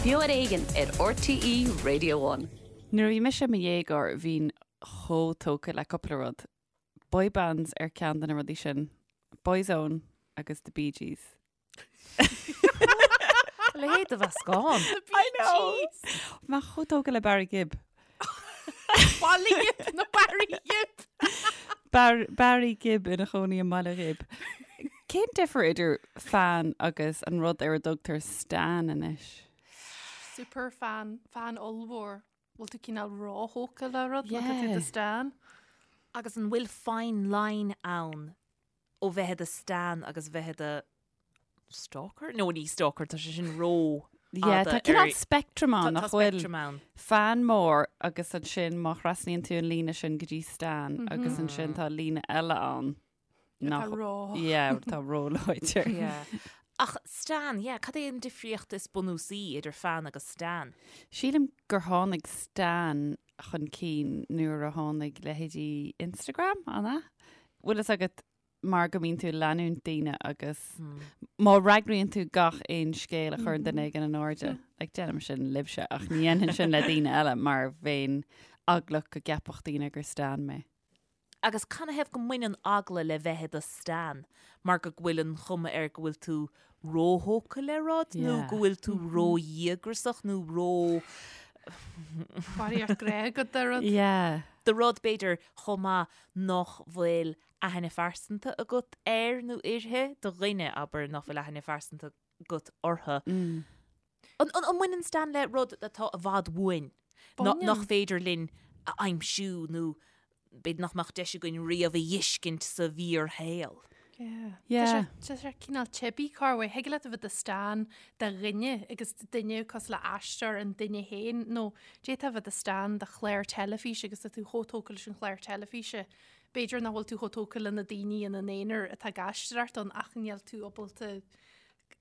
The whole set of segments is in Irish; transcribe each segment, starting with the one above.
Beo ar Éigean ar RTÉ Radio One. Nuair a bhí mise i mo dhéagóir bhínn chomh tógtha le cúpla rud. Boy bands ar ceann de na rudaí sin. Boyzone agus The Bee Gees. A leithéid de mheascán. I know! Mé chomh tógtha le Barry Gibb. Baile Ghib nó Barry Gibb. Bar Barry Gibb ina chónaí i mBaile Ghib. Cén difear idir fan agus an rud ar a dtugtar stan anois? Super fan, fan ollmhór. Bhfuil tú cineál róthógtha le rud nó tá tú i do stan? Agus an bhfuil fine line ann ó bheith i do stan agus bheith i do stalker? No, ní stalker, tá sé sin ró Yeah, tá cineál spectrum ann, nach bhfuil? Tá spectrum ann. Fan mór agus ansin má thrasnaíonn tú an líne sin go dtí stan agus ansin tá líne eile ann. Atá ró. Yeah, atá róláidir. Yeah. Ach stan, yeah, cad é an difríocht is bunúsaí idir fan agus stan? Sílim gur tháinig stan chun cinn nuair a tháinig leithéidí Instagram, an ea? Bhfuil fhios agat mar go mbíonn tú ag leanúint daoine agus má fhreagraíonn tú gach aon scéal a chuireann duine éigin in airde, like déanaim sin libhse ach ní dhéanfainn sin le daoine eile mar bheinn eaglach go gceapfadh daoine gur stan mé. Agus canathaobh go mbaineann eagla le bheith i do stan? Mar go bhfuil an chuma air go bhfuil tú róthógtha le rud nó go bhfuil tú ródhíograiseach nó ró... Barraíocht grá agat do rud. Yeah. Do rud b'fhéidir chomh maith nach bhfuil aithne phearsanta agat air nó uirthi, do dhuine, abair, nach bhfuil aithne phearsanta agat orthu. An mbaineann stan le rud atá i bhfad uainn, nach féidir linn a aimsiú nó b'fhéidir nach mbeadh deis againn riamh a dh'fheiscint sa bhfíorshaol? Yeah. Tá sé cineál teibí corruair. Thig leat a bheith i do stan de dhuine agus duine cosúil le aisteoir an duine féin nó d'fhéadfá a bheith i do stan de chlár teilifíse agus tá tú chomh tógtha leis an chlár teilifíse. B'fhéidir nach bhfuil tú chomh tógtha le na daoine ina n-aonar atá ag aisteoireacht ann ach níl tú ábalta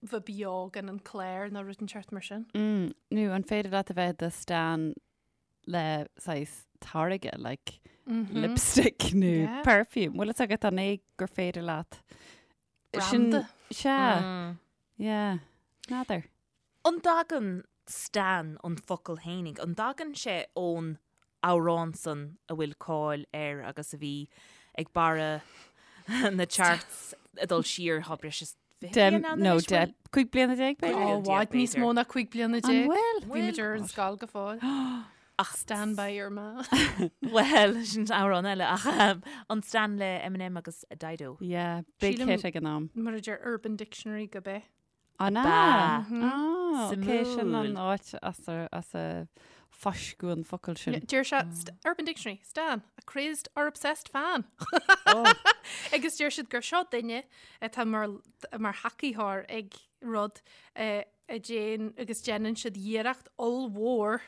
bheith beo gan an clár nó rud inteacht mar sin. Nó an féidir leat a bheith i do stan le saghas táirge, like lipstick nó Yeah. perfume. Bhfuil fhios agat an é gur féidir leat sin Branda. Sea. Yeah. N'fheadar. An dtagann stan an focal fhéinig, an dtagann sé ón amhrán san a bhfuil cáil air agus a bhí ag barra na charts ag dul siar thá breis is 20 bliain ann nó anois, bhfuil? 10, 15 bliana b'fhéidir? Ó, i bhfad níos mó ná 15 bliana. An bhfuil? Bhí muid ar an scoil go fóill. Ach Stand by your man. Bhuel, sin amhrán eile ach an Stan le Eminem agus Dido. Yeah, big Sílim- hit ag an am. Mar a deir Urban Dictionary gurb é. An ea? Ba. Ah, ok, sin an Suimiúil. áit as a, as a fáisceadh an focal sin. Deir sé, st- Urban Dictionary, Stan, a crazed or obsessed fan. Oh. Agus deir siad gur seo duine atá mar, mar thacaítheoir ag rud eh, a déan agus déanann siad iarracht ollmhór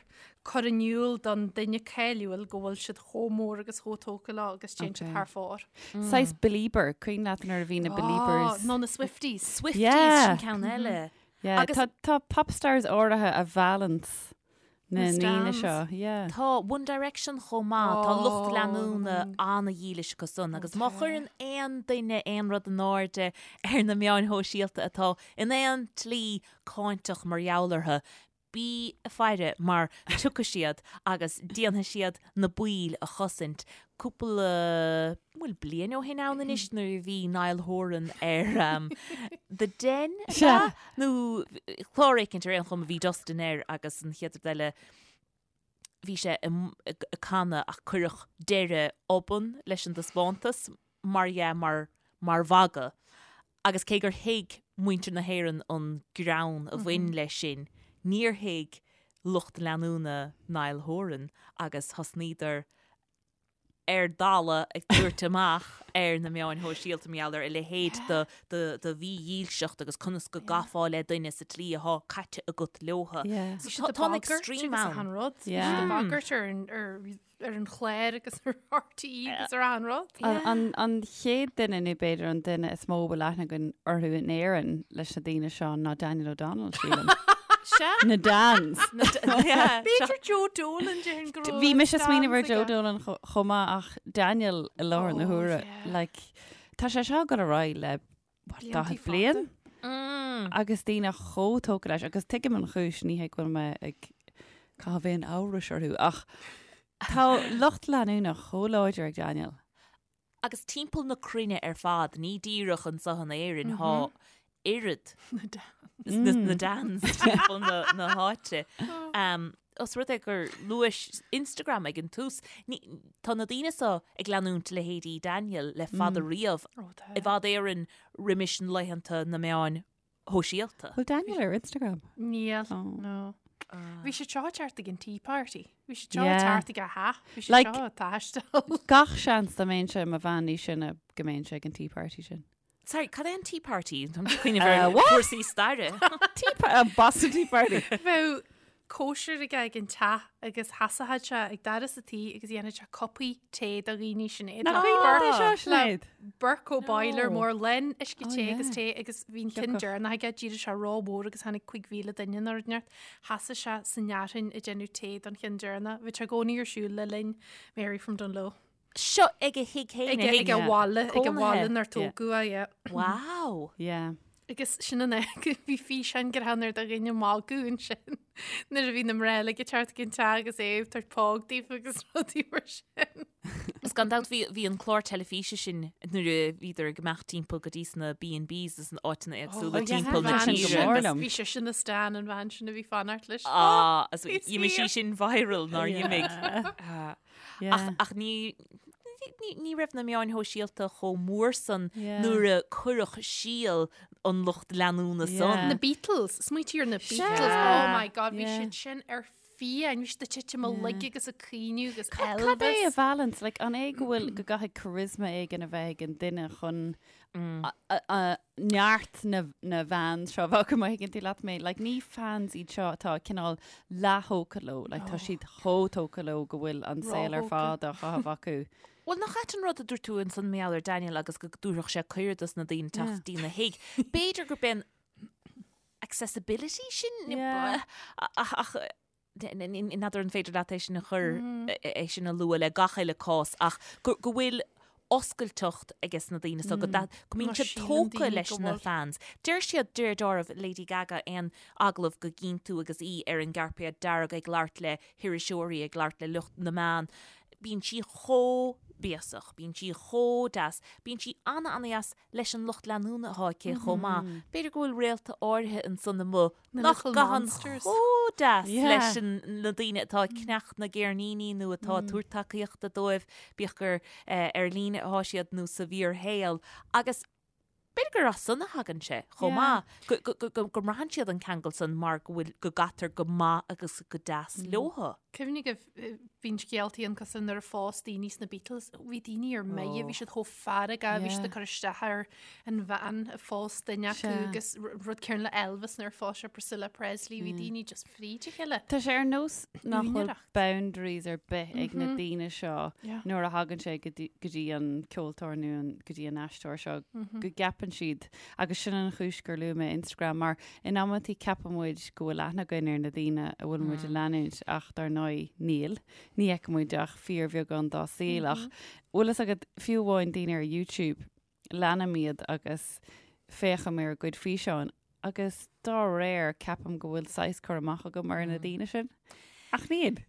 cur in iúl don duine cáiliúil go bhfuil siad chomh mór agus chomh tógtha leo agus téann siad Ok. thar fóir. Saghas Belieber, cuimhin leat nuair a bhí na Beliebers. Á, nó na Swifties. Swifties Yeah. sin ceann eile. Yeah, Agus- tá, tá popstars áirithe a mheallann na Na ndaoine stans. seo. Yeah. Tá One Direction chomh maith, tá lucht Ó. leanúna ana-dhílis acu san agus má chuireann aon duine aon rud in airde ar na meáin shóisialta atá in aon tslí cáinteach mar gheall orthu, bí ag faire mar tiocfaidh siad agus déanfaidh siad na baill a chosaint. Cúpla, bhfuil bliain ó shin ann anois nuair a bhí Niall Horan ar The Den, ab ea? Nó clár éicint ar aon chuma bhí Dustin air agus an chéad rud eile bhí sé ag canadh ach cuireadh deireadh obann leis an dtaispeántas mar dhea mar mar mhagadh agus cé gur thuig muintir na hÉireann an greann a bhain leis sin níor thuig lucht leanúna Niall Horan agus thosnaíodar ar dalladh ag tabhairt amach ar na meáin shóisialta mar gheall ar a leithéid de mhídhílseacht agus conas go gcaithfeá le duine sa tslí athá caite agat leotha. Yeah. So tá an extreme ann. ann. Rud. Yeah. Bhí siad ag bagairt ar an- ar ar an chlár agus ar RTÉ agus ar achan rud. An, an, an chéad duine nó b'fhéidir an duine is mó a bhfuil aithne againn orthu in Éirinn leis na daoine seo ná Daniel O'Donnell, sílim. Sea. Na Dans. B'fhéidir Joe Dolan déarfainn go raibh Bhí mise ag smaoineamh ar Dans Joe aige. Dolan chomh maith ach Daniel i láthair na Oh, huaire. yeah. Like, tá sé seo ag dul ar aghaidh le what, Blianta 40 bliain? Mm. Agus daoine chomh tógtha leis, agus tuigim an chúis, ní hé go bhfuil mé ag caitheamh aon amhrais orthu, ach tá lucht leanúna chomh láidir ag Daniel. Agus timpeall na cruinne ar fad, ní díreach anseo in Éirinn, thá oiread na Dans timpeall na háite. Os rud é gur luais Instagram ag an tús, tá na daoine seo ag leanúint leithéidí Daniel le fada riamh, i bhfad Éireann roimis na laethanta na meáin shóisialta. Bhfuil Daniel ar Instagram? Níl, no. Bhí sé seo thart ag an Tea Party. Bhí sé seo thart ag a theach. Bhí sé seo ag taisteal. Gach seans dá mbeinnse i mo bhean níos sine go mbeinnse ag an Tea Party sin. Sorry, cad é an Tea Party? Táim ag cuimhneamh ar chúrsaí staire. Tea Party, Boston Tea Party. Bheadh cóisir aige ag an teach agus sheasfadh sé ag doras an tí agus dhéanfadh sé cupaí tae do dhaoine Sinéad. Nach cuimhin leat é seo, Sinéad? Bercow boiler mór lán uisce te agus tae agus bhí an ceann deireanach aige, d'éirigh sé rómhór agus tháinig 5,000 duine nó rud inteacht. Sheasadh sé san fhearthainn ag déanamh tae don cheann deireanach. Bhí sé i gcónaí ar siúl le linn Mary from Dungloe. Seo ag a thigh féin, a thigh Ag a bhaile, ag a bhaile inar tógadh é, yeah. Wow! Yeah. Agus sin an fháth bhí físeán greannmhar de dhaoine ag magadh ansin nuair a bhí na mná uilig ag teacht ag an teach agus é ag tabhairt póg daofa agus rudaí mar sin. Is gan dabht bhí bhí an clár teilifíse sin nuair a bhíodar ag imeacht timpeall go dtí sna B&Bs is na áiteanna éagsúla Oh, yeah, timpeall na bhean sin go tíre mór agus liom. Bhí sise ina stan an bhean sin a bhí fanacht leis. Ah, agus Bhí d'imigh sí saor. sin viral nár dh'imigh. Yeah. Ach, ach ní, ní, ní raibh na meáin shóisialta chomh mór san Yeah. nuair a cuireadh síol an lucht leanúna Yeah. san. Na Beatles, smaointigh ar na Beatles, Sea. oh my god, bhí Yeah. siad sin ar fiáin, bhí siad ag titim uilig agus ag caoineadh agus Cad é a Elvis. balance? Like, an é go bhfuil go gcaithfidh charisma éigin a bheith ag an duine chun neart na bhfans seo bheadh má thuigeann tú leat mé. Like, ní fans iad seo atá cineál leath-thógtha leo, like, tá siad chomh tógtha leo go bhfuil an saol ar fad á chaitheamh acu. Bhuel, nach ait an rud a dúirt tú ansan mar gheall ar Daniel agus go dtabharfadh sé cuireadh dos na daoine teacht dtína thigh. B'fhéidir gurb é an accessibility sin ach N'fheadar an féidir leat é sin a chur, é sin a lua le gach uile cás ach go bhfuil oscailteacht ages na daoine so go go mbíonn siad tógtha leis na fans. Deir siad, deir dealramh Lady Gaga aon agallamh go gcíonn tú agus í ar an gcairpéad dearg ag labhairt le hiriseoirí, ag labhairt le lucht na meán, bíonn sí chomh béasach, bíonn sí chomh deas, bíonn sí ana-ana-dheas leis an lucht leanúna atá aici chomh maith. B'fhéidir go bhfuil réalta áirithe ansan amuigh nach gcaitheann chomh deas leis na daoine atá ag ceannach na gceirníní nó atá ag tabhairt tacaíochta dóibh, bíodh gur ar líne atá siad nó sa bhfíorshaol. Agus b'fhéidir gur as san a thagann sé chomh maith, go mbraitheann siad an ceangal san mar go bhfuil, go gcaitear go maith agus go deas leothu. Cuimhnigh go bhíonn scéaltaí ann cosúil nuair a phós daoine sna Beatles, bhí daoine ar mire, bhí siad chomh feargach, bhí siad ag cur isteach ar an bhean a phós duine acu agus rud céanna le Elvis nuair a phós sé Priscilla Presley, bhí daoine just fríd a chéile. Tá sé ar nós nach bhfuil boundaries ar bith ag na daoine seo nuair a thagann sé go dtí an ceoltóir nó go dtí an aisteoir seo go gceapann siad agus sin an chúis gur luaigh mé Instagram mar in amantaí ceapann muid go bhfuil aithne againn ar na daoine a bhfuil muid a leanúint ach dar ndóigh níl. Ní fheiceann muid ach fíorbheagán dá saol ach bhfuil fhios agat fiú amháin daoine ar YouTube, leanaim iad agus féachaim ar a gcuid físeáin agus dá réir ceapaim go bhfuil saghas cur amach agam ar na daoine sin. Ach níl.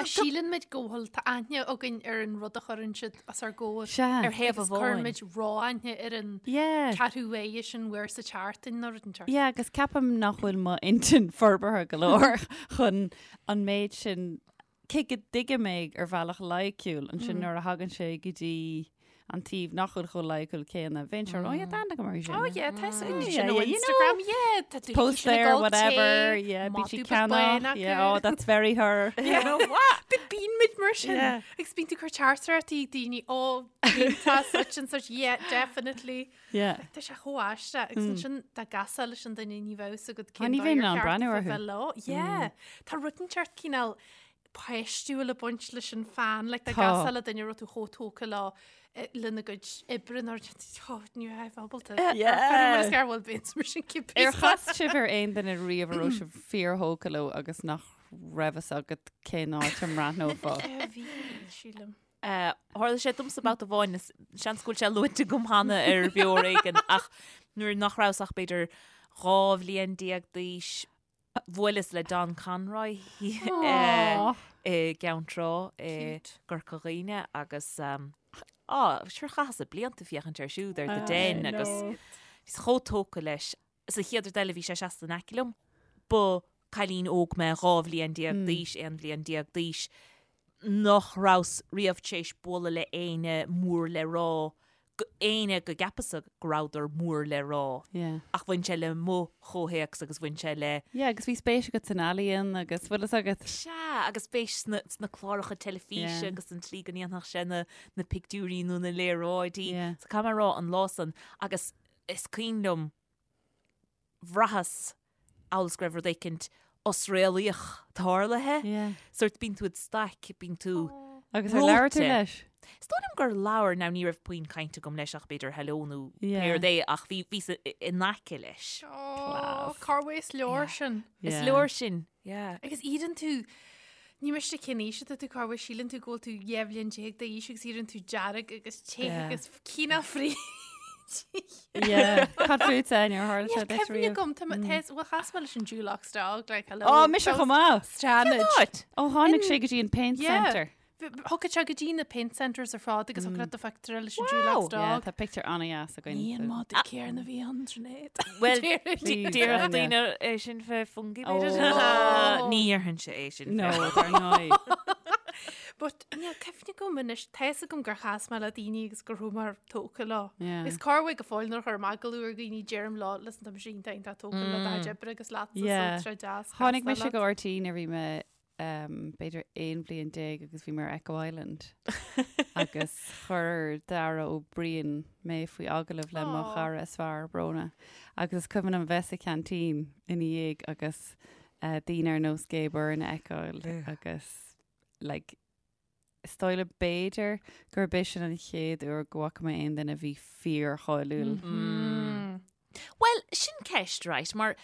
Síleann muid go bhfuil tá aithne againn ar an rud a chuireann siad os ár gcomhair. Sea. Ar thaobh Agus amháin. cuireann muid ró-aithne ar an Yeah. ceathrú uaire sin uair sa tseachtain nó rud inteacht. Yeah, agus ceapaim nach bhfuil m'intinn forbartha go leor chun an méid sin, cé go dtuigim é ar bhealach loighciúil, ansin nuair a thagann sé go dtí an taobh nach bhfuil chomh loighciúil céanna, bheinn sure, oh yeah, tá aithne agam uirthi sin. Oh yeah, tá sin Yeah, sin ó yeah, you Instagram, yeah, tá tú Post sin ag there, dul whatever, tae, yeah, bíonn sí madadh beag bán ceannach, acu. yeah, oh, that's very her. You know what? Bíonn muid mar sin. Yeah. Agus bíonn tú ag cur teachtaireachtaí ag daoine, oh, tá such and such, yeah, definitely. Yeah. Tá sé chomh aisteach agus ansin dá gcasfá leis an duine ní bheadh fhios agat Tá, cén ní dóigh bheinn ar in ann cheart breathnú a orthu. bheith leo. Yeah. Tá rud inteacht cineál páistiúil ag baint leis an fan, like dá Tá. gcasfá le duine a raibh tú chomh tógtha leo eh, lena gcuid oibre nó oh, ní raibh ábalta. Yeah. Is gar bhfuil bíonn mar sin cibé. Ar chas sibh ar aon duine riamh a raibh sibh fíorthógtha leo agus nach raibh fhios agat cén áit a mbreathnófá? Eh, Bhí, sílim. Tharla sé domsa babhta amháin, seans go bhfuil sé luaite agam cheana ar Bheo Ar Éigean, ach Nuair nach rabhas ach b'fhéidir 12 bhliain d'aois, bhuaileas le Don Conroy i gCeann Trá i gCorca Dhuibhne agus á, sure chaitheas blianta ag féachaint air siúd ar The Den agus bhíos chomh tógtha leis. Is an chéad rud eile bhí sé seasta in aice liom. Ba cailín óg mé, 12 bhliain d'aois, 11 bhliain d'aois, nach rabhas riamh tar éis bualadh le éinne mór le rá éinne go gceapas-sa go rabhadar mór le rá. Yeah. Ach bhain sé le mo chomhthéacs agus bhain sé le. Yeah, agus bhí spéis agat san ealaíon agus bhfuil fhios agat. Sea, agus spéis sna, sna cláracha teilifíse Yeah. agus an tslí go ndéanfadh sé na, na pictiúirí nó na léaráidí. Yeah. So caithfidh mé a rá an lá san agus is cuimhin liom bhraitheas amhail is go raibh rud éicint osréalaíoch tarlaithe. Yeah. Sórt bíonn tú id staic, bíonn tú Agus ar labhair tú reoite. leis? Is dóigh liom gur labhair, now ní raibh puinn cainte agam leis ach b'fhéidir hello nó Yeah. pé rud é ach bhí, bhíos in aice leis. Oh, corruair is leor sin. Is Yeah. leor sin, yeah. Agus éiríonn tú, ní miste cén aois atá tú corruair, síleann tú go bhfuil tú 12 bhliain d'aois agus éiríonn tú dearg agus te Yeah. agus cineál fríd. Yeah. Cad fútsa ar tharla sé Níl duit cuimhne riamh? agam, tá mé- tá- bhuel, chas mé leis an Dulux dog, like, hello. Ó, mise chomh maith. Stanage. Áit! Ó, tháinig sé go dtí an paint Yeah. centre. Thiocfadh sé go dtí na paint centres ar fad agus thiocfadh leat do phictiúr leis an Wow. Dulux Yeah, dog. tá pictiúr an-dheas againn. Ní an so- madadh céanna a bhí ann, Sinéad. Well, Please, Déarfadh Áine. daoine é sin fé Fungie b'fhéidir. Oh. Ní dhéarfainnse é sin. No, dar ndóigh. But níl cuimhne agam anois, tá fhios agam gur chas mé le daoine agus go raibh mé tógtha leo. Yeah. Is corruair go fóill nuair a chuirim agallamh ar dhaoine deirim leo, listen tá mise iontach iontach tógtha le do chuid oibre agus leatsa so Yeah. tá sé deas Tháinig castáil mise leat. go RTÉ nuair a bhí mé um, b'fhéidir 11 bhliain agus bhí mé ar Echo Island agus chuir Dara Ó Briain mé faoi agallamh le mo Aw. chara is fearr Bróna agus is cuimhin liom bheith sa cheaintín ina dhiaidh agus uh, daoine ar nós Gay Byrne a fheiceáil agus like, is dóigh liom b'fhéidir gurb é sin an chéad uair go bhfaca mé aon duine a bhí fíorcháiliúil. Mm. Well, sin ceist, right, mar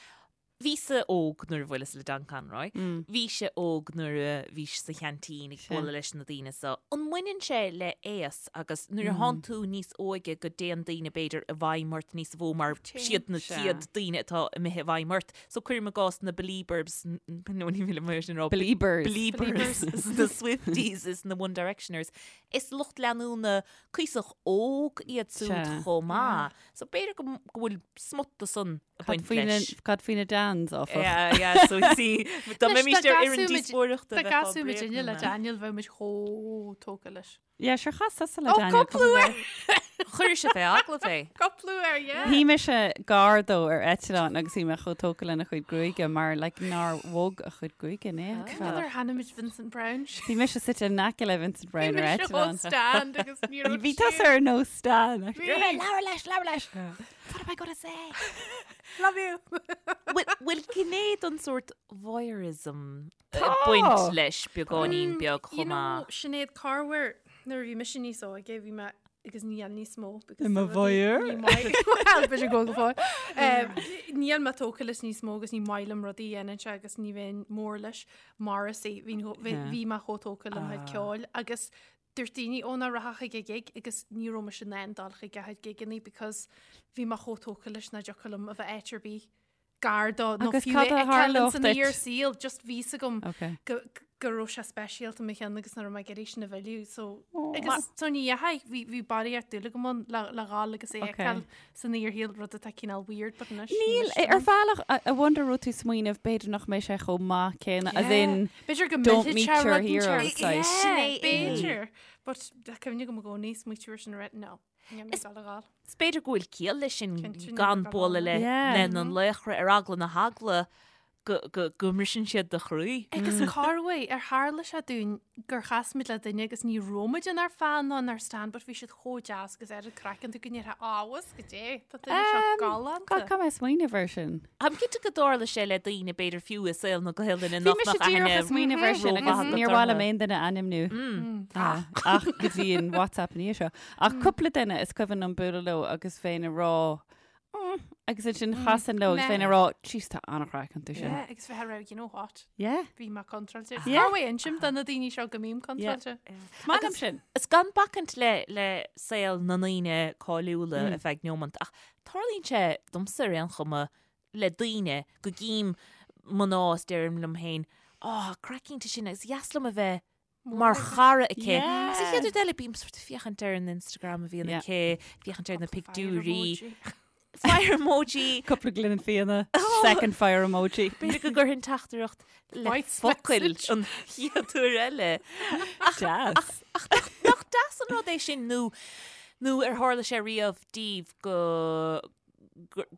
bhíos-sa óg nuair a bhuaileas le Don Conroy, Mm. bhís-se óg nuair a bhís sa cheaintín ag Sea. bualadh leis na daoine so. An mbaineann sé le aos agus nuair a thánn tú níos óige go dtéann daoine b'fhéidir i bhfeidhm ort níos mó mar Téann. siad na Sea. chéad daoine atá imithe i bhfeidhm ort. So cuirim i gcás na Beliebers, nó ní mhíle mar sin rá. Beliebers. Beliebers, is na Swifties is na One Directioners. Is lucht leanúna cuíosach óg iad siúd Sea. chomh maith. So b'fhéidir go go bhfuil smut de san ag Cad baint faoi na- leis. Cad faoi na Dans, áfach. Yeah, yeah, so you see, dá Anois, mbeimís dá ar fhoireann gcasfadh muid- díospóireachta Dá bheifeá gcasfadh muid inne le bréagnaithe. Daniel bheadh muid chomh tógtha leis. Yeah, sure chas tusa le Oh, Daniel cúpla uair! Chuir sé fé agallamh é. Cúpla uair, yeah. Shuigh mise gar dó ar eitleán agus bhí mé chomh tógtha lena chuid gruaige mar like, nár bhog a chuid gruaige in aon Cad chor. ar thaitnigh muid Vincent Browne? Bhí mise suite in aice le Vincent Browne ar Bhí mise eitleán. stand agus ní raibh Bhí tusa ar nós Stan. Bhí. Labhair leis, labhair leis. What am I gonna say? Love you. Bhfuil bhfuil gné den sórt voyeurism ag Tá. baint leis beagáinín beag Mm, You chomh know, maith. Sinéad corruair nuair a bhí mise níos óige bhí mé agus níl níos mó because I mo tá rudaí- voyeur? ní maith- Well, b'fhéidir go go fóill. Um, Níl mé tógtha leis níos mó agus ní maith liom rudaí a dhéanann sé agus ní bheinn mór leis Morrissey bhí bhí Yeah. bhí mé chomh tógtha lena chuid ceoil agus dúirt daoine ó ná rachadh chuig a gig agus ní raibh mise in ann dul chuig a chuid gigeanna because bhí mé chomh tógtha leis nach dtiocfadh liom a bheith áit ar bith gar dó nó Agus fiú cad é a a fheiceáil tharlódh san duit? fhíor saol just bhí fhios agam Okay. go go raibh sé speisialta i mo cheann agus nach raibh mé ag iarraidh sin a mhilleadh so agus so ní dheachaigh bhí bhí barraíocht dúil agam ann le le dhul agus é a Okay. fheiceáil san fhíorshaol rud atá cineál weird but anois ní Níl, miste ar liom. bhealach, I I wonder raibh tú smaoineamh b'fhéidir nach mbeidh sé chomh maith céanna as Yeah. in B'fhéidir go don't millfidh meet sé your rud inteacht. heroes, like. Yeah, Sin é é. B'fhéidir but tá cuimhne agam i gcónaí smaoitiú air sin a rith no níl mé ag dul a dhul. Is b'fhéidir go bhfuil ciall leis sin Cinnte, níl gan mé ag dul a bualadh le dhul. Yeah. lena laochra ar eagla na heagla go go go mbriseann siad do chroí. Agus corruair ar tharla sé dúinn gur chas muid le duine agus ní raibh muid inár fan ná inár stan but bhí siad chomh deas agus ar an craiceann tú go ndéarfá abhus go dé tá duine seo Um, galánta. God, caithfidh mé smaoineamh air sin. Táim cinnte go dtarla sé le daoine b'fhéidir fiú i saol na Gaelainne Bhí nach mise mbeadh díreach aithne ag smaoineamh air sin agus rómhaith níor agat mhaith liom orthu. aon duine a ainmniú. Ah, ach go dtí an WhatsApp ní seo. Ach cúpla duine is cuimhin liom bualadh leo agus bheinn ag rá, "Mm, Agus ansin chasainn leo agus bheinn ag rá, jeez tá an-chraic iontu sin. Yeah, agus bheith ag rá, you know what? Yeah. Bhí mé contráilte. Yeah. Cá bhfuil insim do na daoine seo go mbím contráilte? Is maith liom sin. Is gan bacaint le le saol na ndaoine cáiliúla ar feadh neomant, ach tarlaíonn sé domsa ar aon chuma le daoine go gcím mná is deirim liom féin, oh, craic iontach sin agus dheas liom a bheith mar chara aici. Agus an chéad rud eile, bím sort of féachaint ar an Instagram a bhíonn aici, féachaint ar na pictiúirí. Fire emoji. Cúpla gloine fíona, second fire emoji. B'fhéidir go gcuirfinn teachtaireacht le focail an chéad uair eile. Deas. Ach nach deas an rud é sin nó nó ar tharla sé riamh daoibh go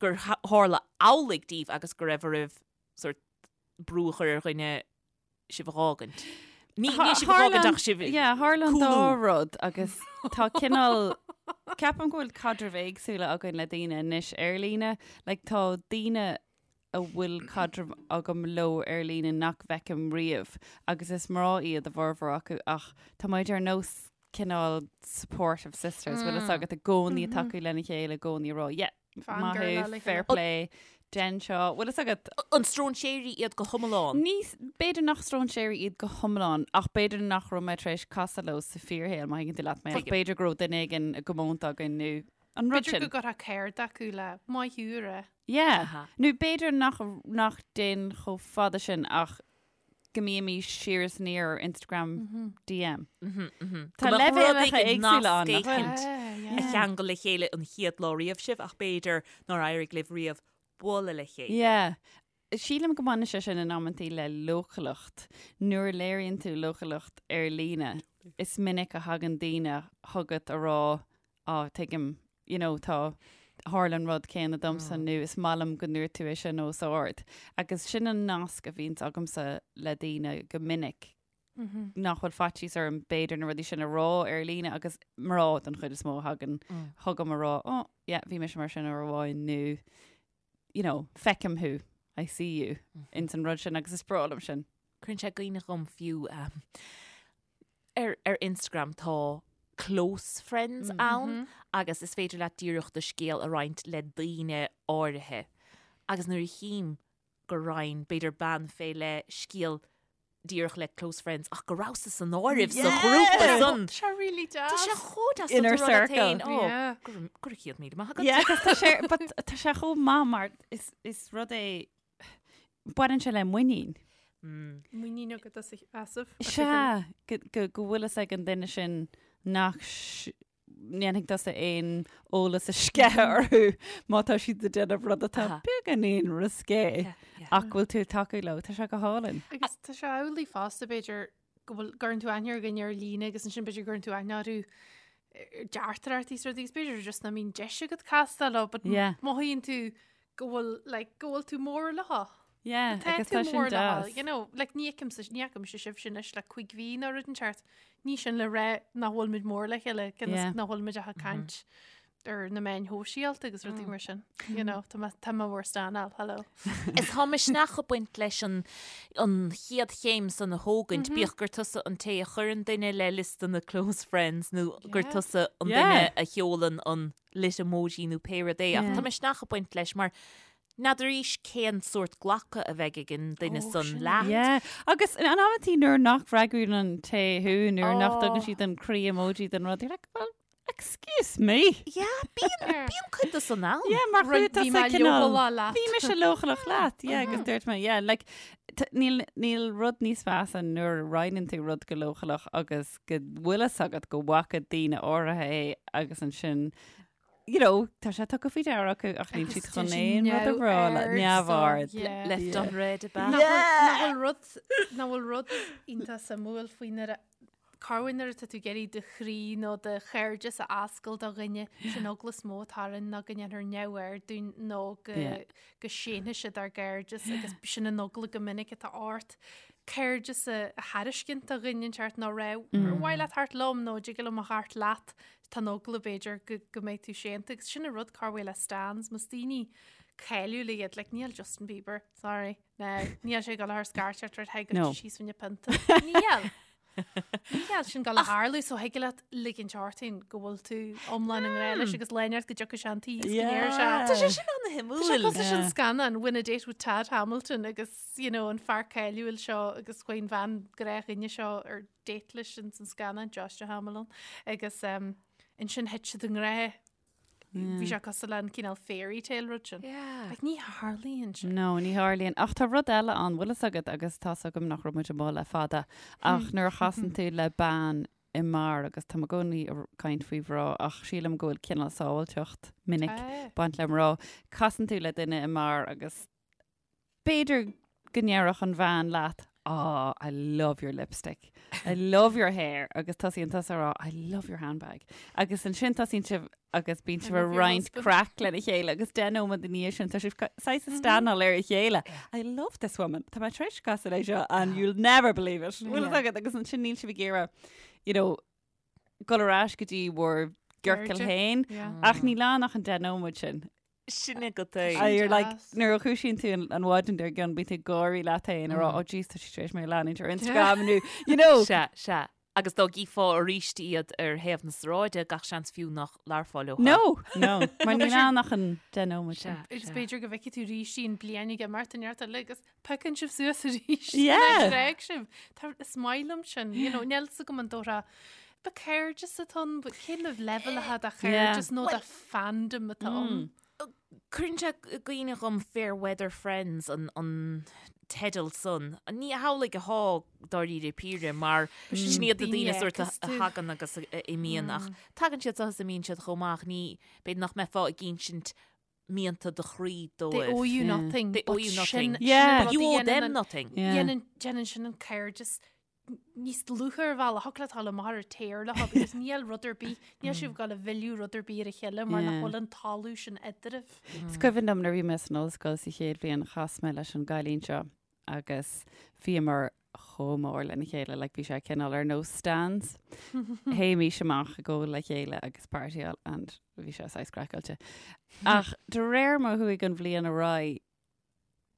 gur tharla amhlaidh daoibh agus go raibh oraibh sort brú a chur ar dhuine sibh a dh'fhágaint. Ní ní sibh a dh'fhágaint ach sibh Yeah, tharla an dá cúlú. rud agus tá cineál ceapaim go bhfuil caidrimh éagsúla againn le daoine anois ar líne. Like, tá daoine a bhfuil caidreamh agam leo ar líne nach bhfeicim riamh agus is mná iad a bhformhór acu ach tá muid ar nós cineál supportive sisters, bhfuil fhios agat i gcónaí ag tacú lena chéile, i gcónaí ag rá, yeah, Maith thú, fair play, dein seo, bhfuil fhios agat? An stróinséirí iad go hiomlán? Ní, b'fhéidir nach stróinséirí iad go hiomlán, ach b'fhéidir nach raibh mé tar éis casadh leo sa fíorshaol, má thuigeann tú leat mé, ach b'fhéidir go raibh duine éigin i gcomónta againn nó an rud B'fhéidir sin. go gcuirfeá céard acu le maith thú a rá. Yeah. Nó b'fhéidir nach, nach dtéann chomh fada sin ach go mbímís siar is aniar ar Instagram DM. Tá leibhéalacha éagsúla ann, nach bhfuil? A cheangal le chéile an chéad lá riamh sibh ach b'fhéidir nár éirigh libh riamh bualadh le chéile. Yeah. Sílim go mbaineann sé sin in amantaí le leochaileacht. Nuair a léiríonn tú leochaileacht ar líne, is minic a thagann daoine chugat a rá á, tuigim, you know, tá, tharla an rud céanna domsa nó is maith liom go ndúirt tú é sin os ard. Agus sin an nasc a bhíonns agamsa le daoine go minic, nach bhfuil faitíos orm b'fhéidir na rudaí sin a rá ar líne agus mná den chuid is mó a thagann chugam a rá, oh, yeah, bhí mise mar sin uair amháin nó, you know, feicim thú, I see you, ins an rud sin agus is breá liom sin. Cuireann sé i gcuimhne dhom fiú ar ar Instagram tá close friends ann agus is féidir leat díreach do scéal a roinnt le daoine áirithe. Agus nuair a chím gur roinn b'fhéidir bean fé leith scéal díreach le close friends ach go rabhas-sa san áireamh sa ghrúpa san. Tá sé really deas. Tá sé chomh deas Inner tú rá leat circle. féin, "Ó, Yeah. go raibh go raibh 100,000 maith agat. Yeah, agus tá sé, but tá sé chomh maith mar is, is rud é, baineann sé le muinín. Muinín agat as a sheasamh. Sea, go, go, go bhfuil fhios ag an duine sin nach ndéanfaidh tusa aon eolas a sceitheadh orthu má tá siad ag déanamh rud atá beagáinín risqué ach go bhfuil tú ag tacú leo. Tá sé go hálainn. Agus tá sé amhlaidh fosta b'fhéidir go bhfuil gcuireann tú aithne ar dhuine ar líne agus ansin b'fhéidir gcuireann tú aithne orthu ar deartaireachtaí is rudaí agus b'fhéidir just nach mbíonn deis agat castáil leo but mothaíonn tú go bhfuil like go bhfuil tú mór leo. Yeah, Tá agus tú tá sin mór leo, deas. you know, like ní fheicimse, ní fheicimse sibhse anois le cuig mhí nó rud inteacht. Ní sin le rá nach bhfuil muid mór le chéile, cionn is Yeah. nach bhfuil muid ach ag caint ar na meáin shóisialta agus rudaí mar sin. You know, tá mé tá mé bhur stanáil, hello. Is tá misneach ag baint leis an an chéad chéim san a thógaint, bíodh gur tusa an té a chuireann duine le liosta na close friends nó gur Yeah. tusa an Yeah. duine a sheolann an lit emoji nó pé rud é. Ach Yeah. tá misneach ag baint leis mar N'fheadar arís cén sórt glacadh a bheidh ag an duine san leat. Yeah. Agus in amantaí nuair nach bhfreagraíonn an té thú, nuair nach dtugann siad an croí emoji den rud, you're like, well, excuse me. Yeah, bíonn, bíonn cuid de san ann. Yeah, mar Rud- chuaigh bhí tusa mé cineál- leochaileach leat. Bhí mise leochaileach leat, yeah, agus dúirt mé, yeah, like, t- níl, níl rud níos measa nuair a roinneann tú rud go leochaileach agus go bhfuil fhios agat go bhfaca daoine áirithe é agus ansin you know, tá sé tugtha faoi deara acu ach níl siad chun aon rud a rá le neamhaird. Left unread ab ea? Nach bhfuil rud, nach bhfuil rud iontach suimiúil faoi nuair a, corruair nuair atá tú ag iarraidh do chroí nó do chairdeas a oscailt do dhuine, sin eagla is mó atá orainn ná go ndéanfar neamhaird dúinn nó go, go séanfaidh siad ár gcairdeas agus sin an eagla go minic atá ort. Cairdeas a thairiscint do dhuine inteacht nó rá, ar mhaith leat theacht liom nó dtig liom a theacht leat. Tá an eagla b'fhéidir go go mbeidh tú séanta agus sin an rud corruair le stans, más daoine cáiliúla iad, like níl Justin Bieber, sorry, no, níl sé ag dul a chur scairteacht ort, hey, No. síos fá choinne pionta. Níl. Níl sin ag gabháil a tharlú so thig leat ligint ort féin go bhfuil tú iomlán i ngrá leis agus lá inteacht go dtiocfaidh sé an tí is go ndéarfaidh sé. Tá sé sin an-shuimiúil. Tá sé cosúil leis an scannán Win a Date with Tad Hamilton agus you know, an fear cáiliúil seo agus chuaigh an bhean gnáthdhuine seo ar date leis in san scannán Joshua Hamilton agus um, ansin thit siad i ngrá. Bhí sé cosúil le an cineál fairy tale rud sin. Yeah. Like, ní tharlaíonn sin. No, ní tharlaíonn. Ach tá rud eile ann, bhfuil fhios agat agus tá's agam nach raibh muid amuigh le fada, ach nuair a chasann tú le bean i mbeár agus tá mé i gcónaí ag caint faoi mhná ach sílim go bhfuil cineál sábháilteacht minic Tá. baint le mná. Casann tú le duine i mbeár agus B'fhéidir go ndéarfadh an bhean leat, Oh, I love your lipstick. I love your hair. Agus tosaíonn tusa a rá, I love your handbag. Agus ansin tosaíonn sibh agus bíonn sibh ag roinnt craic lena chéile agus 10 nóiméad ina dhiaidh sin tá sibh saghas ag stanáil ar a chéile. I love this woman. Tá mé tar éis casadh léi seo and you'll never believe it. Bhfuil fhios agat agus ansin níl sibh ag iarraidh, you know, dul ar ais go dtí bhur gciorcal féin. Ach níl ann ach an 10 nóiméad sin. Sin agat é. Ah, you're like, nuair a dhúisíonn tú an mhaidin dár gcionn, bíonn tú ag gáirí leat féin ag rá, oh jeez, tá sí tar éis mé a leanúint ar Instagram nó, you know. Sea, sea. Agus dá gcífeá arís iad ar thaobh na sráide, gach seans fiú nach labharfá leo. No, no, mar níl ann ach an 10 nóiméad sin. Sea, Agus sea. b'fhéidir go bhfeicfidh tú arís í an bliain ag imeacht an neart eile agus piocann sibh suas arís. Yeah. D'fhág sibh. Tá, is maith liom sin, you know, níl fhios agam an dóra Ba cairdeas atá ann, but cén level atá de chairdeas nó de fandom atá ann? Cuireann sé i gcuimhne dhom Fair Weather Friends an an teideal san. Ní hamhlaidh atá dáiríre píre mar sin iad na daoine sórt a thagann agus a imíonn ach tagann siad so is imíonn siad chomh maith ach ní b'fhéidir nach mbeifeá ag insint mianta do chroí They dóibh. owe you nothing. They owe but you sin- nothing. sin Yeah. an rud You a owe dhéanann them an- nothing. Yeah. Dhéanann déanann sin an cairdeas níos dlúithe ar bhealach thig leat dul amach ar an tear leo because níl rud ar bith, níl sibh ag gabháil a mhilleadh rud ar bith ar a chéile mar nach Yeah. bhfuil an talamh sin eadraibh. Is cuimhin liom nuair a bhí mé san ollscoil sa chéad bhliain chas mé leis an gcailín seo agus bhíomar chomh mór lena chéile, like bhí sé cineál ar nós stans. Théimís amach ag ól le chéile agus partyáil and bhí sé saghas craiceáilte. Ach de réir mar a chuaigh an bhliain ar aghaidh,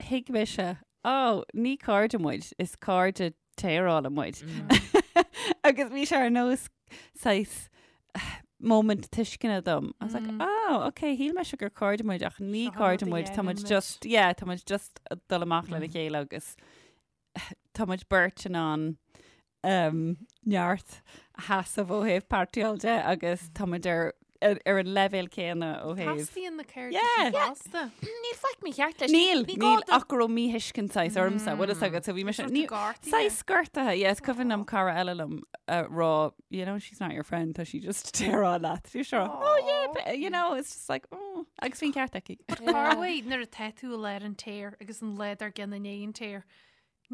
thuig mise, oh, ní cairde muid, is cairde téarála muid. Agus bhí sé ar nós saghas moment tuisceana dom. I was like, oh, okay, shíl mise gur cairde muid ach ní Seo an cairde rud a muid, tá muid dhéanann muid. just, yeah, tá muid just ag dul amach lena chéile agus tá muid beirt in ann um, neart a sheasamh ó thaobh partyáil de agus tá muid ar, ar, ar an leibhéal céanna ó thaobh. Teastaíonn na cairde Yeah. sin fosta. Níl faic mícheart leis. Níl, Ní gá níl do- ach go raibh míthuiscint saghas ormsa, bhfuil fhios agat, so bhí mise, Sort ní, gortaithe. saghas gortaithe, yes, cuimhin liom cara eile liom a rá, you know, she's not your friend, tá sí just téaráil leat. Bhí mise oh yeah, but, you know, it's just like, oh, agus bhí an ceart aici. Corruair nuair atá tú i lár an tear agus an lá dár gcionn i ndiaidh an tear,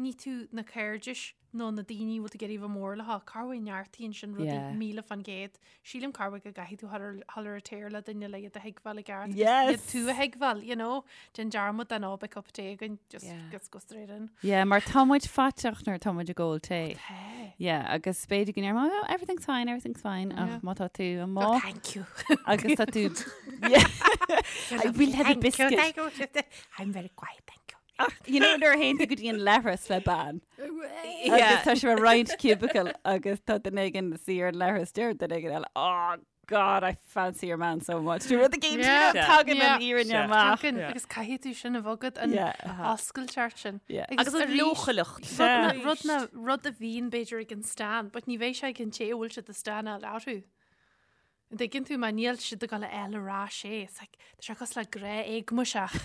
ní tú na cairdis nó na daoine bhfuil tú ag iarraidh bheith mór leo. Corruair neartaíonn sin rudaí Yeah. 1000%. Sílim corruair go gcaithfidh tú dhul ar an tear le duine le iad a thuigbheáil i gceart. agus Yes. Iad tú a thuigbheáil, you know. Déan dearmad den oh beidh cup of tae againn, just Yeah. just go straight in. Yeah, mar tá muid faiteach nuair tá muid ag ól tae. Tae. Yeah, agus b'fhéidir go ndéarfá, oh, everything's fine, everything's fine, Yeah. ach má tá tú Oh, amuigh thank you. agus tá tú... Yeah. I will have a Thank you, biscuit. thank you. I'm very quiet, thank you. Ach, you know, nuair a théann tú go dtí an leithreas le bean. Yeah. Agus tá sibh ag roinnt cubicle agus tá duine éigin ina suí ar an leithreas deir duine éigin eile, oh God, I fancy your man so much. Dú rud éigin Yeah. tagann Yeah. an fhírinne Yeah. amach. Tagann, agus caithfidh tú sin a bhogadh an Yeah. oscailteacht sin. Yeah. Agus an arís, leochaileacht. Rud na- rud na rud a bhíonn b'fhéidir ag an stan, but ní bheidh sé ag an té a bhfuil siad ag stanáil orthu. An dtuigeann tú mar níl siad ag dul a fháil ar ais é. It's like, tá sé cosúil le grá éagmaiseach.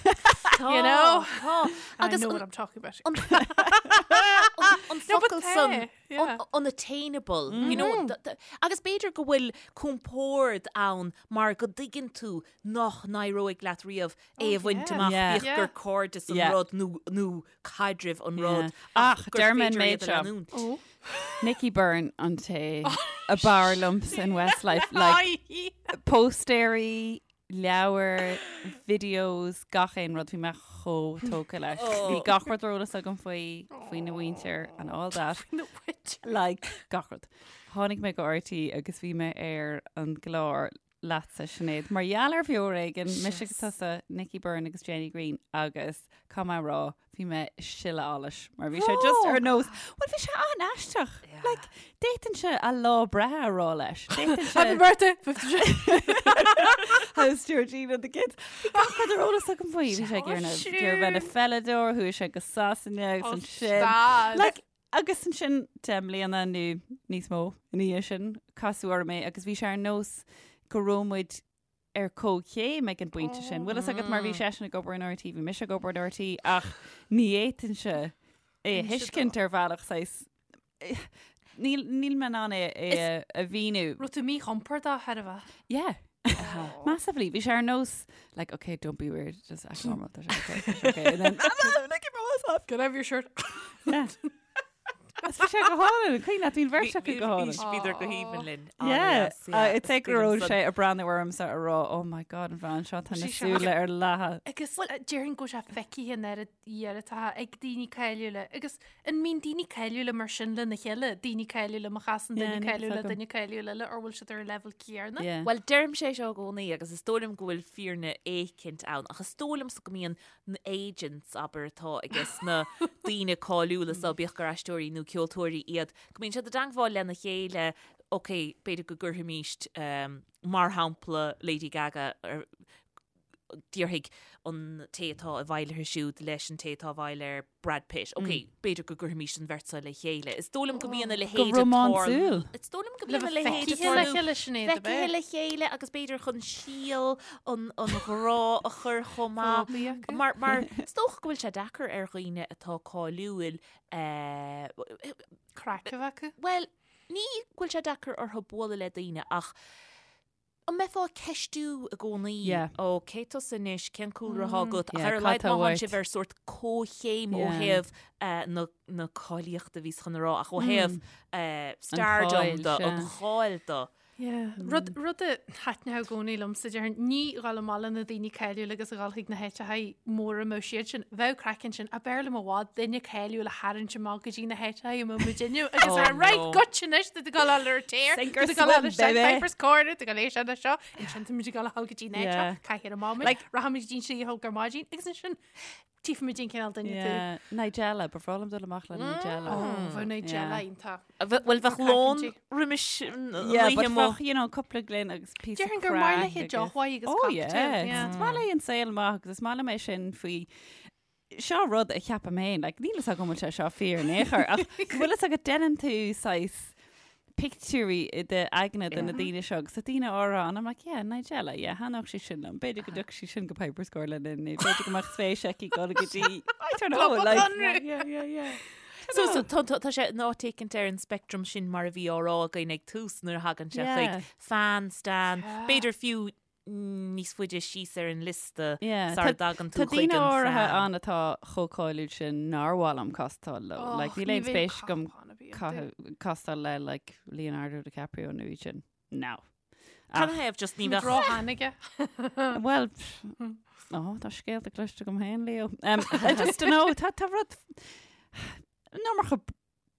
You know? Tá. I Agus know an- what I'm talking about. an No, but focal tá, san yeah. un- unattainable, you know, agus b'fhéidir go bhfuil compord ann mar go dtuigeann tú nach n-éireoidh leat riamh é a bhaint yeah. amach Yeah. bíodh Yeah. gur cairdeas an Yeah. rud nó nó caidreamh an Yeah. rud Ach, gur deir mé an féidir méid iad a seo. leanúint. Oh. Nicky Byrne an té ab fhearr liomsa in Westlife, like, póstaeirí, leabhair, videos, gach aon rud bhí mé chomh tógtha leis. Bhí gach rud ar eolas agam faoi faoina mhuintir and all that. No, wait. Like gach rud. Tháinig mé go RTÉ agus bhí mé ar an gclár leatsa, Sinéad, mar gheall ar bheo ar éigean, mise agus tusa, Nicky Byrne agus Jenny Greene agus caithfidh mé a rá, bhí mé ag sileadh allais mar bhí sé just ar nós, bhuel bhí sé an-aisteach. Like, d'fhéadfainnse a lá breithe a rá leis. D'fhéadfainnse Happy birthday! 53. How's Georgina and the kids? Bhí gach rud ar eolas agam faoi. Bhí sé ag iarraidh ag iarraidh bheith ina pheileadóir, chuaigh sé go Sasana agus ansin. Stad. Like, agus ansin 10 mbliana nó níos mó ina dhiaidh sin, casadh orm é agus bhí sé ar nós go raibh muid ar comhchéim ag an bpointe sin. Bhfuil fhios agat mar bhí seisean ag obair in RTÉ, bhí mise ag obair in RTÉ ach ní fhéadfainnse é a thuiscint ar bhealach saghas níl níl mé in ann é é a mhíniú. Raibh tú míchompordach thar a bheith. Yeah. Massively. Bhí sé ar nós like okay don't be weird just act normal. Tá sé okay, tá sé okay. And then like myself. Can I have your shirt? Yeah. Is bhí sé go hálainn, cuimhin leat, bhí an bheirt acu go hálainn. Bhíodar go haoibhinn linn. Yeah, it's like go raibh sé ag breathnú ormsa ag rá, oh my god, an bhean seo, tá na súile ar leathadh. Agus déarfainn go bhfuil sé feicthe an oiread oiread ag daoine cáiliúla. Agus an mbíonn daoine cáiliúla mar sin lena chéile, daoine cáiliúla má chasann duine cáiliúil le duine cáiliúil eile, or bhfuil siad ar an leibhéal céanna? Bhuel, deirimse é seo i gcónaí agus is dóigh liom go bhfuil fírinne éicint ann, ach is dóigh liomsa go mbíonn na agents, abair, atá ages na daoine cáiliúla so, bíodh gur aisteoirí nó ceoltóirí iad, go mbíonn siad i dteangmháil lena chéile, ok, b'fhéidir go gcuirfimíst, mar shampla, Lady Gaga ar, déarfaidh an té atá i bhfeighil uirthi siúd leis an té atá i bhfeighil ar Brad Pitt, ok, b'fhéidir go gcuirfimíst an bheirt seo le chéile. Is dóigh liom go mbíonn a leithéid Go rómánsúil. Is dóigh liom go mbíonn a leithéid ag Feicthe le tarlú. chéile, Sinéad, ab ea? Feicthe le chéile agus b'fhéidir chun síol an an ghrá a chur chomh maith. Fógraí acu. Mar, mar is dócha go bhfuil sé deacair ar dhaoine atá cáiliúil, eh, Craic a bheith acu. bhuel, ní go bhfuil sé deacair orthu bualadh le daoine ach An mbeifeá ag ceistiú i gcónaí, Yeah. ó cé tusa anois, cén cúlra atá agat, ach Yeah, ar a cad laghad tá má thánn uait? sibh ar sórt comhchéim ó Yeah. thaobh eh, na, na cáilíochta bhíos chun a rá, ach ó thaobh eh, stardom cháil, de, sea. an cháil de. Yeah. Rud, rud a thaitneodh i gcónaí liomsa, déarfainn, ní dhul amach le na daoine cáiliúla agus a dhul chuig na háiteacha móra a mbeadh siad sin. Bheadh craic ansin, ach b'fhearr liom i bhfad duine cáiliúil a tharraingt amach go dtí na háiteacha a mbeadh muid inniu agus Oh, a rá, right, no. goitse anois, tá tú ag dul ar an tear, Sink or tá tú ag dul swim, baby. Piper's Corner, tá tú ag dul é sin seo, ansin tá muid ag dul a dhul go dtí an áit seo, Yeah. caithfidh ar maidin, Like- rachaimid go dtí an slí a thóg ar maidin, agus ansin tífimid an cineál duine tú. Yeah. Nigella, ba bhreá liom dul amach le Nigella. Oh, bheadh Nigella Yeah. iontach. Bhuel, bheadh lón roimis an Yeah, oíche but amuigh. bheadh, you know, cúpla gloine agus píosa Déarfainn gur maith craic léi agus- deoch mhaith agus Oh, cocktail, yeah. yeah. Is maith léi an saol maith agus is maith liom é sin faoi Seo rud a cheapaim féin, like, níl fhios agam an bhfuil sé seo fíor in aon chor, ach go bhfuil fhios agat déanann tú saghas pictiúirí i d'aigne de na daoine seo agus tá daoine áirithe ann, I'm like, yeah, Nigella, yeah, thaitneodh sí sin liom, b'fhéidir go dtiocfadh sí sin go Piper's Corner linn, nó b'fhéidir go mbeadh spéis aici dul go dtí, I don't know, Club like, Conradh. yeah, yeah, yeah. So, so tá, tá, tá sé in áit éicint ar an spectrum sin mar a bhí á rá againn ag tús nuair a thagann sé Yeah. chuig fan, stan, b'fhéidir fiú níos faide síos ar an liosta Yeah, sara tá- dtagann tú Tá chuig daoine an áirithe fan. ann atá chomh cáiliúil sin nár mhaith liom castáil leo. Like, níl aon spéis agam castáil le like, Leonardo DiCaprio nó iad sin. No. Can I have just ní bheadh Róshean aige. Well, pff, oh, tá scéalta cloiste agam féin, Leo. Um, I just don't know, tá tá rud iomarca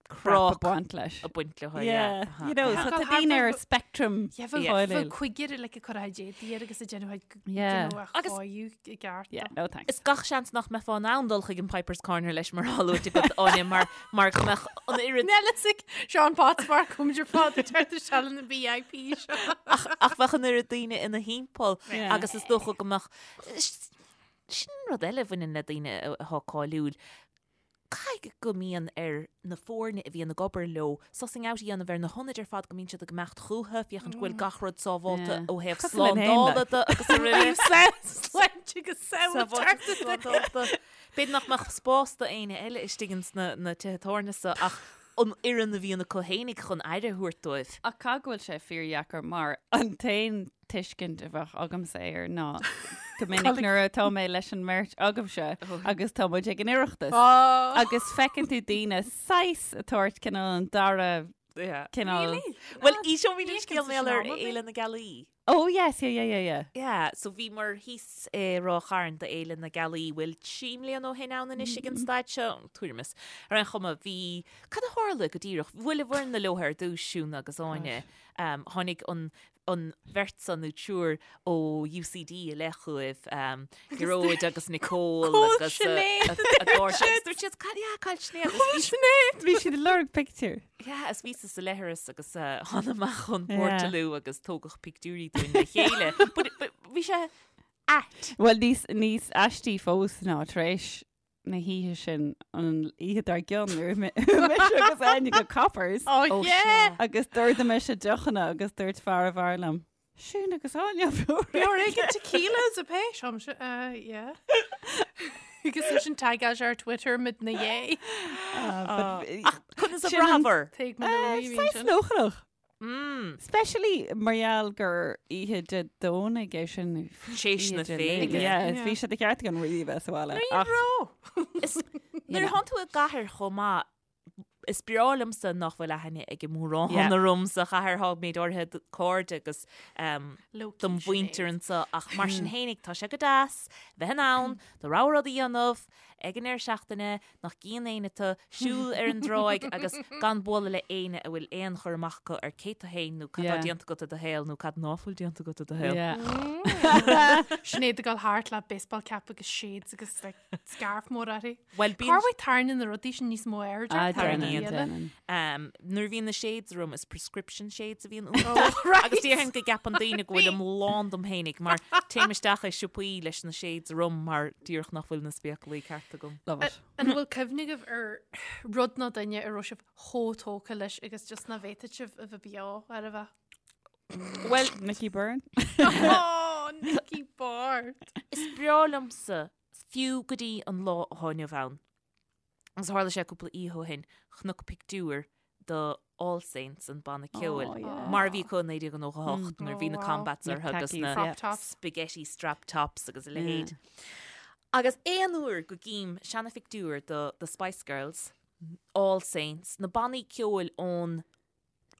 crap ag baint leis. Ag baint leo, yeah. You know, so tá daoine ar spectrum Yeah, bheadh bheadh cuigear like ag cur a éadaí air agus ag déanamh a Yeah. déanamh a Agus- chóiriú i gceart. Yeah, no thanks. Is gach seans nach mbeifeá in ann dul chuig an Piper's Corner leis mar atá luaite agat, Áine, mar mar go mbeadh an oiread Níl fhios ag Seán Potts mar cumid ar fad ag teacht isteach na VIP seo. ach ach bheadh an oiread daoine ina thimpeall Yeah. agus is dócha go mbeadh sin rud eile a bhaineann le daoine atá cáiliúil. Caithfidh go mbíonn ar na foirne a bhíonn ag obair leo sussing out a dhéanamh ar na hionaid ar fad go mbíonn siad ag imeacht chucu, féachaint go bhfuil gach rud sábháilte ó thaobh Cosúil linn féin, slándála de agus araile. Sláinte agus Sábháilte slándála. B'fhéidir nach mbeadh spás do éinne eile istigh ins na tithe tábhairne so ach an fhoireann a bhíonn acu fhéinig chun aire a thabhairt dóibh. Ach caithfidh go bhfuil sé fíordheacair mar an t-aon tuiscint a bheadh agamsa air ná go minic nuair atá mé leis an mbeirt agaibhse agus tá muid ag an Oireachtas agus feiceann tú daoine saghas ag tabhairt cineál an dara cineál Bhuel, inseoidh mé an scéal mar gheall ar Fhéile na Gealaí. Oh yes, yeah, yeah, yeah, yeah. Yeah, so bhíomar thíos i Ráth Chairn do Fhéile na Gealaí, bhfuil 3 mbliana ó shin ann anois ag an staid seo, tuairim is. Ar aon chuma, bhí, cad a tharla go díreach? Bhuail an fhoireann leo ar dtús, Siún agus Áine. Tháinig an. an bheirt san nó triúr ó UCD i leith chugaibh, Gearóid agus Nicole agus a gcairde. Agus dúirt siad, "Cad yeah, cá bhfuil Sinéad?" Agus bhí Sinéad! Bhí siad ag lorg pictiúr. Yeah, is bhíosa sa leithreas agus thána amach chun Portaloo agus tógadh pictiúirí dúinn le chéile. But but bhí sé ait. Bhuel, níos níos aistí fós ná tar éis na hoíche sin an oíche dár gcionn nuair a chuaigh mise agus Áine go Coppers. Oh, Oh, yeah! sea. Agus d'ordaigh mise deochanna agus dúirt fear an bheáir liom, Siún agus Áine Bhí ag tequila is a pé sem se uh, yeah. Agus sin tagáil ar Twitter mid na dhé. Ach conas a bhraitheabhair? Tuig mo nóiní bhí Saghas sin. lóchanach. Mm. Especially mar gheall gur oíche Dé Domhnaigh é sin. Théis na Oíche Dé féile. Luain. Yeah, Yeah. bhí sé de cheart againn really bheith sa bhaile. Ní Ach raibh. Is nuair a thánn tú i gcathair chomh maith, is breá liomsa nach bhfuil aithne ag mórán Yeah. orm sa chathair tá méid áirithe cairde agus um, Low-key dom mhuintir Sinéad. anseo ach mar sin fhéinig tá sé go deas bheith in ann do rogha rud a dhéanamh ag an deireadh seachtaine nach gcíonn éinne tú, siúl ar an dtráigh agus gan bualadh le éinne a bhfuil aon chur amach acu ar cé tú fhéin nó cad tá Yeah. déanta agat i do shaol nó cad ná fuil déanta agat i do shaol. Yeah. Sinéad ag dul thart le baseball cap agus shades agus like, scarf mór uirthi. Bhuel, bíonn Cá bhfuil tarraingíonn na rudaí sin níos mó airde? Ah, Tarraingíonn. déanann, déanann. Um, nuair a bhíonn na shades orm is prescription shades a bhíonn iontu. Oh, right. Agus déarfainn go gceapann daoine go bhfuilim lán dom fhéinig mar téim isteach i siopaí leis na shades orm mar díreach nach bhfuil na spéaclaí ceart agam. Love it. An bhfuil cuimhne agaibh ar rud nó duine a raibh sibh chomh tógtha leis agus just ná bhféadfadh sibh a bheith beo ar a bheith? Bhuel, Nicky Byrne? Oh, Nicky Byrne. is breá liomsa fiú go dtí an lá atá inniu ann. Agus tharla sé cúpla oíche ó shin, chonac pictiúr do All Saints, an banna ceoil, Oh, yeah. mar a bhí acu i 1998 nuair a bhí Oh, na wow. combats Na orthu agus khakis, na yeah. Crop tops. spaghetti strap tops agus a leithéid. Agus aon uair go gcím seanaphictiúr do The Spice Girls, All Saints, na bannaí ceoil ón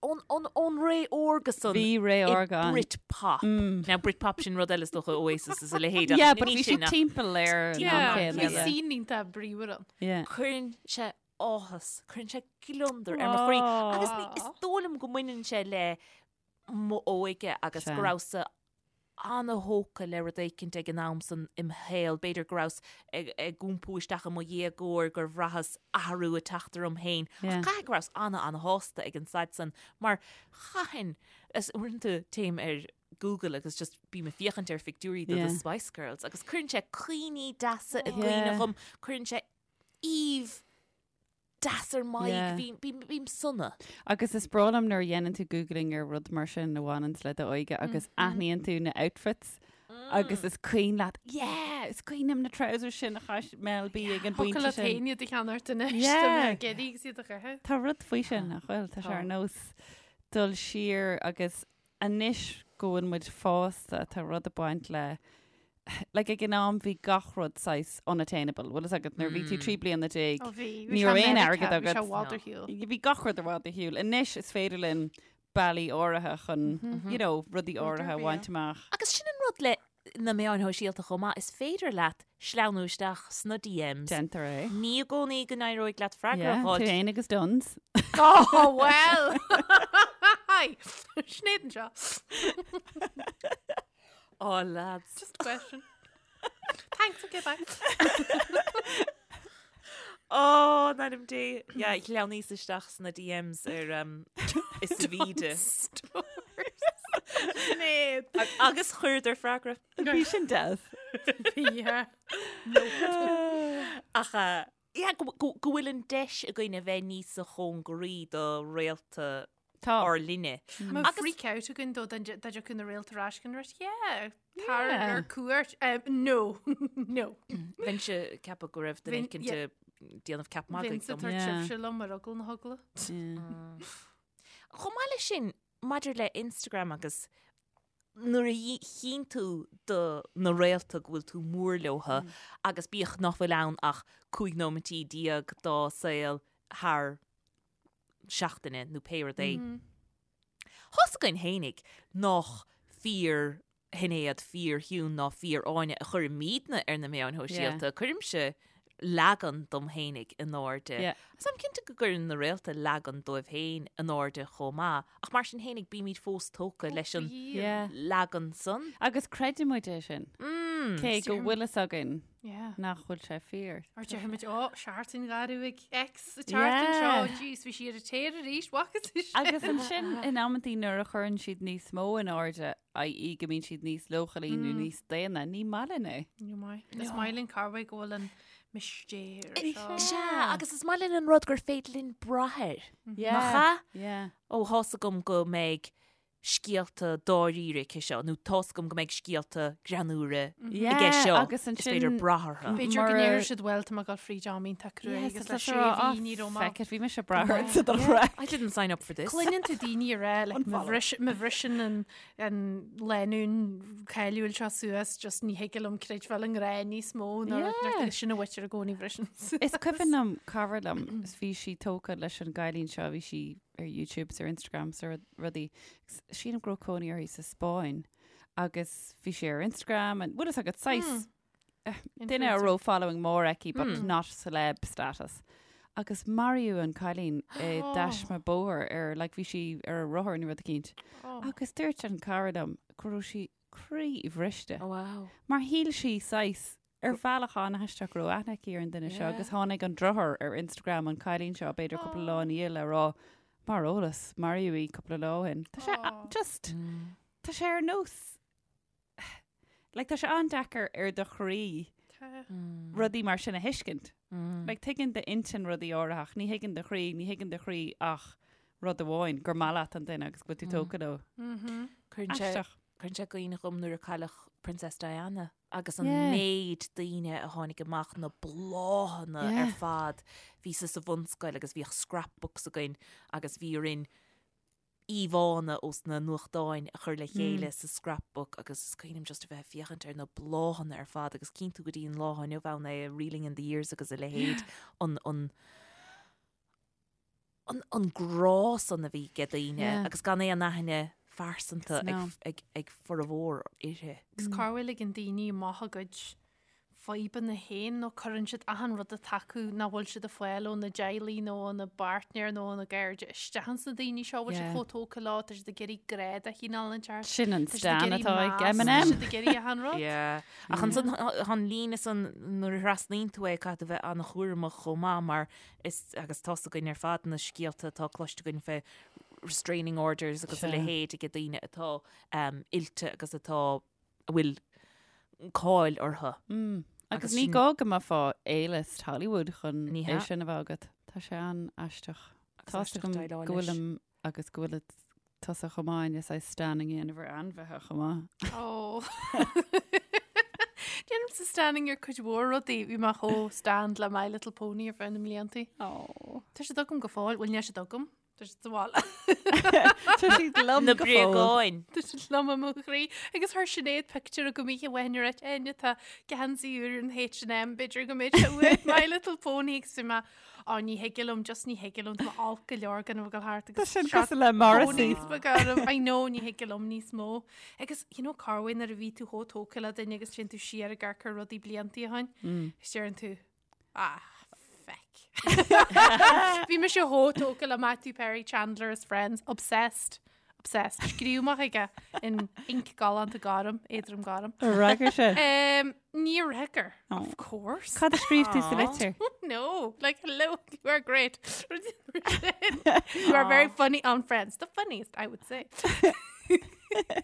ón ón ón ré órga san Bhí ré i órga ann. Britpop. Now Britpop sin rud eile is dócha Oasis is a leithéid ach Yeah, ní but bhí sin siad ach timpeall ar an am Yeah, céanna, bhí yeah. scene iontach bríomhar ann. Yeah. Cuireann sé áthas, cuireann sé gliondar ar mo chroí. Agus ní, is dóigh liom go mbaineann sé le m'óige agus Sea. go rabhas-sa ana-thógtha le rud éicint ag an am san im shaol. B'fhéidir go rabhas ag, ag iompú isteach i mo dhéagóir gur bhraitheas athrú ag teacht orm féin. Ach Yeah. caithfidh go rabhas ana, ana-shásta ag an staid san mar chaithfinn, is uaireanta téim ar Google agus just bím ag féachaint ar phictiúirí de Yeah. The Spice Girls agus cuireann sé cuimhní deasa i gcuimhne Yeah. dhom, cuireann sé aoibh deas ar m'aghaidh, Yeah. bím, bím, bím sona. Agus is breá liom nuair a dhéanann tú googling ar rud mar sin a bhaineanns le d'óige agus aithníonn tú na outfits agus is cuimhin leat, yeah, is cuimhin liom na trousers sin a chaith Mel B ag an Thiocfadh bpointe leat sin. féin iad a cheannacht anois, Yeah. tá mé ag iarraidh agus iad a chaitheamh. Tá rud faoi sin nach bhfuil, tá sé ar nós dul siar agus anois go bhfuil muid fásta tá rud ag baint le like ag an am bhí gach rud saghas unattainable. Bhfuil fhios agat nuair bhí tú 13 bliana. Ó bhí, bhí Ní sé raibh aon Meiriceá, airgead bhí sé agat. i bhfad ar shiúl. Bhí gach rud i bhfad ar shiúl. Anois is féidir linn bealaí áirithe chun, you know, rudaí áirithe a bhaint amach. Agus sin an rud le na meáin shóisialta chomh maith, is féidir leat sleamhnú isteach sna DMs. Déantar é. Ní i gcónaí go n-éireoidh leat freagra a Yeah, tú fháil. féin agus Dunnes. Oh, well! Hi! Sinéad anseo. Oh, lads. Just a question. Thanks, okay, bye. Oh, in ainm Dé. Yeah, shleamhnaíos isteach sna DMs ar um, is sa bhíde. Sinéad. Agus chuireadar freagra. Bhí sin deas. Yeah. Ach uh, yeah, go, go, go bhfuil an deis againn a bheith níosa chóngaraí do réalta Tá. ár linne. Má Agus- freak out againn dó dá dtiocfadh na réalta ar ais go raibh, yeah, tar Yeah. ar cuairt. Um, no, no. Bheinnse ag ceapadh go raibh duine Bheinn- éicint yeah. ag déanamh ceap magaidh Bheinnse dom. tar Yeah. tibhse liom ar eagla na heagla. Yeah. Chomh maith leis sin, maidir le Instagram agus nuair a chíonn tú do na réalta go bhfuil tú mór leotha agus bíodh nach bhfuil ann ach 15 nóimeintí dá saol thar seachtaine nó pé rud é. Tá's againn fhéinig nach fíor Shinéad, fíor Shiún ná fíor Áine a chuirimidne ar na meáin shóisialta. Cuirimse leagan dom fhéinig in airde. Agus táim cinnte go gcuireann na réalta leagan dóibh féin in airde chomh maith, ach mar sin fhéinig bímid fós tógtha leis an leagan san. Agus creideann muid é sin. Cé go bhfuil fhios againn nach bhfuil sé fíor. Or déarfaimid, ó, seachtain gharbh ag X sa tseachtain seo, jeez, bhí sí ar a tear arís, bhfaca tú sin? Agus ansin in amantaí nuair a chuireann siad níos mó in airde, i.e. go mbíonn siad níos leochailí nó níos daonna, ní maith linn é. Ní maith. Is maith linn cá bhfuil go bhfuil an mistéir seo. Sea, agus is maith linn an rud gur féidir linn brath air. Nach ea? Yeah. Ó, tá's agam go mbeidh scéalta dáiríre aici seo, nó tá's agam go mbeidh scéalta greannúra aige seo. Agus Is féidir brath orthu. B'fhéidir go ndéarfaidh siad bhuel tá mé ag dul fríd am iontach crua agus le sé mhí ní raibh mé. Feck it, bhí mise ag brath ort sa dara. I didn't sign up for this. Cluineann tú daoine ag rá like, má bhriseann an an lánúin cáiliúil seo suas just ní thig liom creidbheáil i ngrá níos mó nó yeah. sin a bhfuiltear i gcónaí bhriseann suas. Is cuimhin liom cara liom is bhí sí tógtha leis an gcailín seo bhí sí ar YouTube is ar Instagram is ar rudaí. Sílim go raibh cónaí uirthi sa Spáinn agus bhí sí ar Instagram and bhfuil fhios agat saghas duine a raibh following mór aici but not celeb status. Agus maraíodh an cailín i dtaisme bóthair ar like bhí sí ar a rothar nó rud eicínt. Agus dúirt an cara liom go raibh sí croíbhriste. Wow. Mar shíl sí saghas ar bhealach an-aisteach go raibh aithne aici ar an duine seo agus tháinig an deartháir ar Instagram an cailín seo b'fhéidir cúpla lá ina dhiaidh le rá mar eolas maraíodh í cúpla lá ó shin. Tá sé just tá sé ar nós like tá sé an-deacair ar do chroí rudaí mar sin a thuiscint. Like tuigeann d'intinn rudaí áirithe ach ní thuigeann do chroí, ní thuigeann do chroí ach rud amháin gur maith leat an duine agus go bhfuil tú tógtha leo. Cuireann sé Aisteach. Cuireann sé i gcuimhne dhom nuair a cailleadh Princess Diana agus an Yeah. méid daoine a tháinig amach, na bláthanna Yeah. ar fad. Bhíos-sa sa bhunscoil agus bhíodh scrapbooks againn agus bhí orainn íomhánna ós na nuachtáin a chur le chéile sa scrapbook agus is cuimhin liom just a bheith ag féachaint ar na bláthanna ar fad agus cíonn tú go dtí an lá inniu ann é Reeling in the Years agus a leithéid an an an an grá san a bhí ag daoine Yeah. agus gan aon aithne phearsanta No. ag, ag, ag formhór uirthi. Agus cá bhfuil ag an daoine amach a gcuid fadhbanna féin nó cuireann siad achan rud atá acu nach bhfuil siad ag fáil óna dteaghlaigh nó óna bpáirtnéir nó óna gcairde isteach ins na daoine seo bhfuil siad Yeah. chomh tógtha leo, tá siad ag iarraidh grá de chineál inteacht. Sin an Tá siad ag stan iarraidh atá ag meas, Tá Eminem. siad ag iarraidh achan rud. Yeah. Ach ansan tá an líne san nuair a thrasnaíonn tú é caithfidh tú bheith an-chúramach chomh maith mar is agus tá's againn ar fad na scéalta atá cloiste againn fé restraining orders agus a Sea. leithéid ag daoine atá um, oilte agus atá a bhfuil cáil orthu. Mm. Agus Agus ní sin- gá go mbeifeá A-list Hollywood chun Ní é hea. sin a bheith agat. Tá sé an-aisteach. Agus Tá aisteach agam déileáil go leis. bhfuilim agus go bhfuil tusa chomh maith is I stanning a dhéanamh ar ainmhithe chomh maith. Ó. Déanaimse stanning ar cuid mhór rudaí, bhí mé chomh stanned le My Little Pony ar feadh na mblianta. Ó. Tá siad agam go fóill, bhuel níl siad agam, tá siad sa bhaile. Tá siad liom Na go fóill. bréagáin. Tá siad liom i mo chroí. Agus chuir Sinéad pictiúr agam oíche amháin ar Áine tá geansaí úr an H&M, b'fhéidir go mbeidh sé uait My Little Pony agus bhí mé Á, ní thig liom, just ní thig liom, tá mé olc go leor gan a bheith ag dul thart Tá agus sin shot cosúil le Morrissey. ponies beaga orm. I know, ní thig liom níos mó. Agus, you know, cá bhfuil nuair a bhí tú chomh tógtha le duine agus téann tú siar ag amharc ar rudaí bliantaí ó shin, agus deireann tú, ah, feck. Bhí mise chomh tógtha le Matthew Perry, Chandler is Friends, obsessed. Obsessed. Scríobh mé chuige in ink galánta gorm, éadrom gorm. Ar fhreagair sé? Um, níor fhreagair, Oh. of course. Cad a scríobh tú sa litir? No, like hello, you are great. you are very funny on Friends. The funniest, I would say.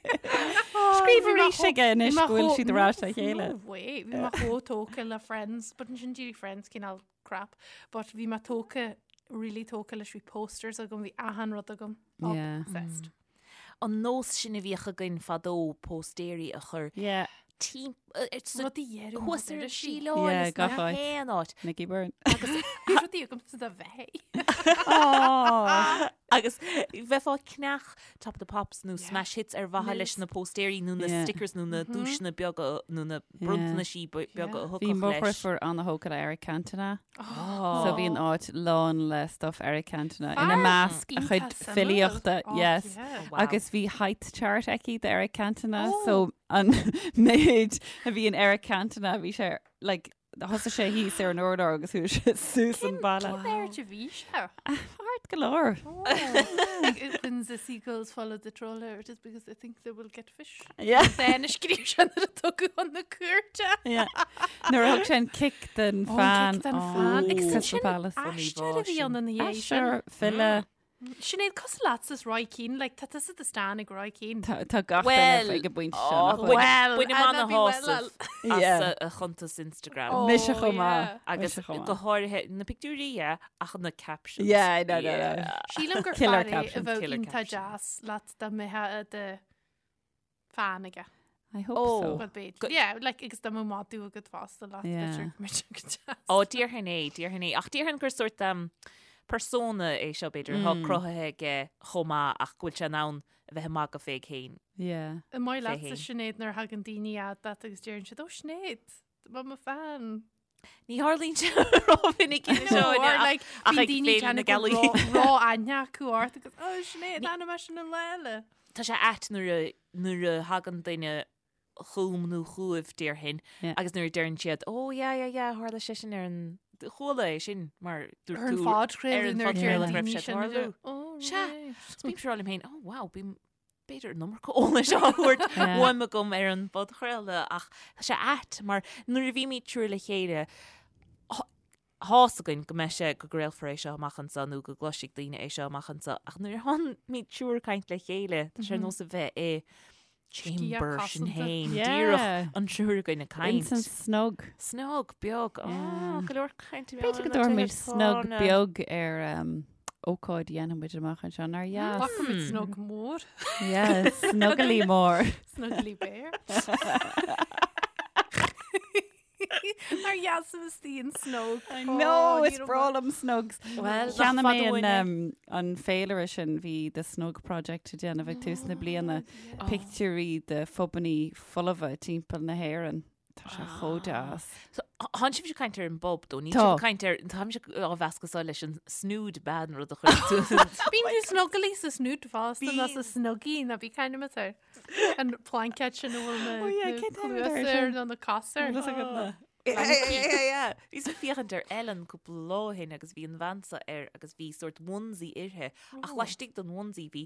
Scríobh arís aige anois go bhfuil siad ar ais le chéile. No way. Bhí mé chomh tógtha le Friends, but ansin d'éirigh Friends cineál crap. But bhí mé tógtha, really tógtha leis, bhí posters agam, bhí achan rud agam. Yeah. Obsessed. An nós sin a bhíodh againn fadó póstaeirí a chur Yeah. Rudaí dheireadh thuas ar an irisí. síleáil Yeah, is gach na áit. haon áit. Nicky Byrne. Bhí rudaí agam sa do bheith. Oh. Agus bheifeá ag ceannach Top of the Pops nó Smash Hits ar mhaithe leis na póstaeirí nó na Yeah. stickers nó na duaiseanna beaga nó na bronntanaisí beaga a Bhí thiocfadh mo leis. dheirfiúr an-thógtha le Eric Cantona. So bhí an áit lán le stuff Eric Cantona ina measc a chuid filíochta, yes. Wow. Agus bhí height chart aici de Eric Cantona, so an méid a bhí in Eric Cantona bhí sé like Thosaigh sé thíos ar an urlár agus chuaigh sé suas an balla. Cén airde a bhí sé? Ard go leor. When the seagulls follow the trawler, it is because they think they will get fish. Yeah. Dán a scríobh sé nuair a tugadh chun na cúirte. Yeah. Nuair a thug sé an cic den Ó, an fan. cic den fan. Agus Crystal sin Palace. Aisteoir a bhí ann ina dhiaidh sin. Aisteoir, file. Sinéad, cosúil leatsa is Roy Keane, like, tá tusa do stan ag Roy Keane. Tá tá gach Well, duine ag an bpointe oh, seo. nach bhfuil? Well, Bainim and I'd be well ana-shásamh as Yeah. a chuntas Instagram. Oh, Mise chomh maith. yeah. Agus Mise chomh maith. go háirithe na pictiúirí, yeah, ach na captions. Yeah, no, no, no. Sílim gur Killer fear é a captions, bheadh killer iontach captions. deas leat dá mbeifeá i do fan aige. I hope Oh. so. Well, b'fhéidir. Go- Yeah, like, agus dá mbeadh madadh agat fosta leat, Yeah. b'fhéidir go mbeadh sé go deas. Ó, déarfainn é, déarfainn é. Ach déarfainn gur sórt um, persona é seo b'fhéidir, atá cruthaithe aige chomh maith ach go bhfuil sé in ann a bheith ag magadh fé féin. Yeah. An maith Fé leatsa féin. Sinéad nuair a thagann daoine fhad leat agus deireann siad, Ó Sinéad, tá mo fan. Ní tharlaíonn sé rómhinic No, seo or like, ach bíonn ag daoine Féile na déanamh go Gealaí. ró-aithne acu ort agus, Ó Sinéad, tháinig mé sin an lá eile. Tá sé ait nuair a nuair a thagann duine chugam nó chugaibh déarfainn Yeah. agus nuair a deireann siad, Ó yeah, yeah, yeah, tharla sé sin ar an chuala é sin mar dúirt Ar an tú ar phodchraoladh an nuair a deireann phodchraoladh go raibh daoine sé sin, tarlú. Ó, Sea. right. Is bímse ag rá liom féin, oh wow, bím b'fhéidir an iomarca eolais á thabhairt Yeah. uaim agam ar an bpodchraoladh ach tá sé ait mar nuair a bhímid triúr le chéile tá fhios againn go mbeidh sé go gcraolfar é seo amach anseo nó go gcloisfidh daoine é seo amach anseo ach nuair a tháimid triúr ag caint le chéile tá sé ar nós a bheith i chamber sinn cosanta. féin Yeah. díreach an triúr againn ag caint. Ins an snug. Snug beag. Ó, Yeah. go leor caint B'fhéidir go dtabharfaimid snug beag ar um, ócáid a dhéanfaidh muid amach anseo nár dheas. Glacfaimid snug mór, Yeah, snuggly mór. snuggly bear. Nár dheas a bheith istigh in snug. No, is breá liom snugs. Well, nach Cheannaigh fada mé uainn an, é. um, an féilire sin bhí The Snug Project ag déanamh ag tús na bliana pictiúirí de phubannaí folmha timpeall na hÉireann. Tá sé chomh deas. So, Tánn sibhse ag caint ar an bpub dó, níl Tá. sibh ag caint ar, táimse á mheascadh seo leis an snood bean rud a chuir tú. Bíonn tú snuggly sa snood fosta ná sa snuggie ná bí kind of air. An plaincéad sin a bhfuil na Oh, yeah, na cén t-ainm atá air cluasa air sin? nó na cosa air. Bhfuil fhios agat na? Bhíos ag féachaint ar Ellen cúpla lá ó shin agus bhí an bhean seo air agus bhí sórt onesie uirthi ach laistigh den onesie bhí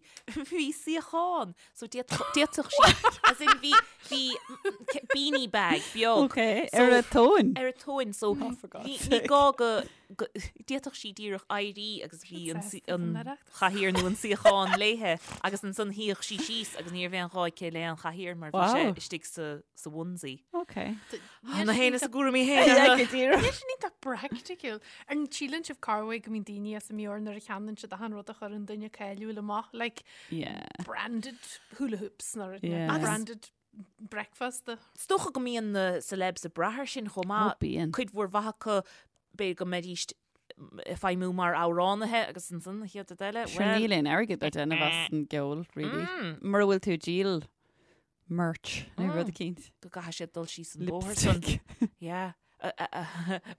bhí suíochán so d'fhéadfadh sí as in bhí bhí beanie bag beag Ok, So- ar a tóin. ar a tóin so Oh, for God's ní ní sake. gá go go- d'fhéadfadh sí díreach éirí agus bhí an Sin suí- sásta an don Oireachtas. chathaoir nó an suíochán léithe agus ansan shuíodh sí síos agus ní raibh aon ghá aici le an chathaoir mar bhí sé Wow. istigh sa sa onesie. Ok. Na héin is a gcúraimí héin Yeah, orthu. go díreach. Níl sin iontach praiticiúil. An síleann sibh corruair go mbíonn daoine as a meabhair nuair a cheannaíonn siad achan rud a chuireann duine cáiliúil amach, like Yeah. branded hula hoops nó rud Yeah. nó Agus- branded breakfast. Is dócha go mbíonn na celebs ag brath air sin chomh maith. Ó, bíonn. Cuid mhór mhaith acu b'fhéidir go mbeidís ag feidhmiú mar amhránaithe agus ansan an chéad rud eile, Sure well, níl aon airgead le déanamh as an gceol, really. Mm. Mura bhfuil tú ag díol merch nó rud eicínt. go gcaithfidh siad dul síos an bóthar san. Lipstick. Yeah.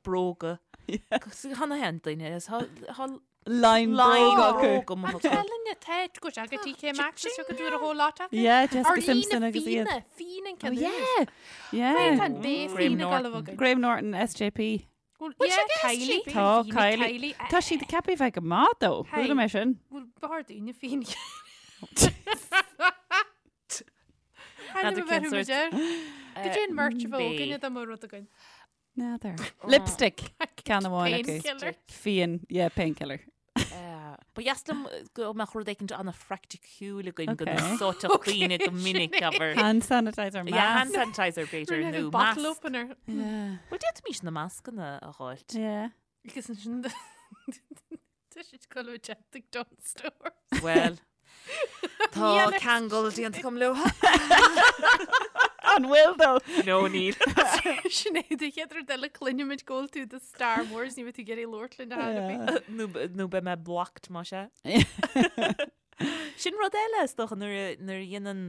Bróga. Tá na haon duine is tá Line line bróga acu. bróga amuigh acu. Telinne te go aga TK Maxx is go dúr a whole lot acu. Yeah, Jessica Ar Simpson líne agus iad. fíona, fíon an Oh, ceann yeah. Yeah. Tá bé Graham fíon Norton. galbh againn. Graham Norton, SJP. Well, Bhfuil yeah, sé ag Kylie. SJP? Tá Fíona Kylie. Kylie. Tá siad ceaptha bheith go maith dó. Hey. Chuala mé sin. Bhfuil bhar daoine fíon. N'fheadar cén sórt. Go dtí an merch a bheith Bé. againne dá mba rud againn. N'fheadar. Lipstick. Ceann amháin acu. Painkiller. Fíon. Yeah, painkiller. Ba dheas liom go mbeadh rud éicint an-phraiticiúil againn go Okay. n-úsáidfeadh daoine go minic abair. Hand sanitizer Yeah, hand mask. sanitizer b'fhéidir Rinne nó an bottle masc. opener. Yeah. Bhuel d'fhéadfaimis na mascanna a dháilt. Yeah. Agus ansin tá siad ag dul ag Dunnes Stores. Well, tá Níl ar- ceangal déanta agam leo. An bhfuil though? No, níl. Sinéad an chéad rud eile cluinfimid go bhfuil tú do Star Wars ní bheidh tú ag iarraidh labhairt linn ar chor ar bith. Nó nó beidh mé blocked más ea. Sin rud eile is dócha nuair a nuair a dhéanann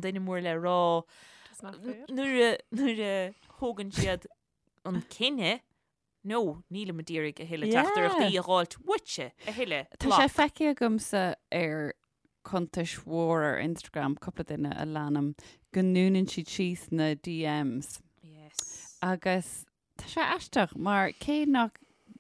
duine mór le rá That's not fair. nuair a nuair a thógann siad an cinneadh No, nílim ag iarraidh a thuilleadh teachtaireachtaí a dh'fháilt uaitse a thuilleadh. Tá sé feicthe agamsa ar cuntais mhór ar Instagram, cúpla duine a leanaim, go ndúnann siad síos na DMs. Yes. Agus Tá sé aisteach mar cé nach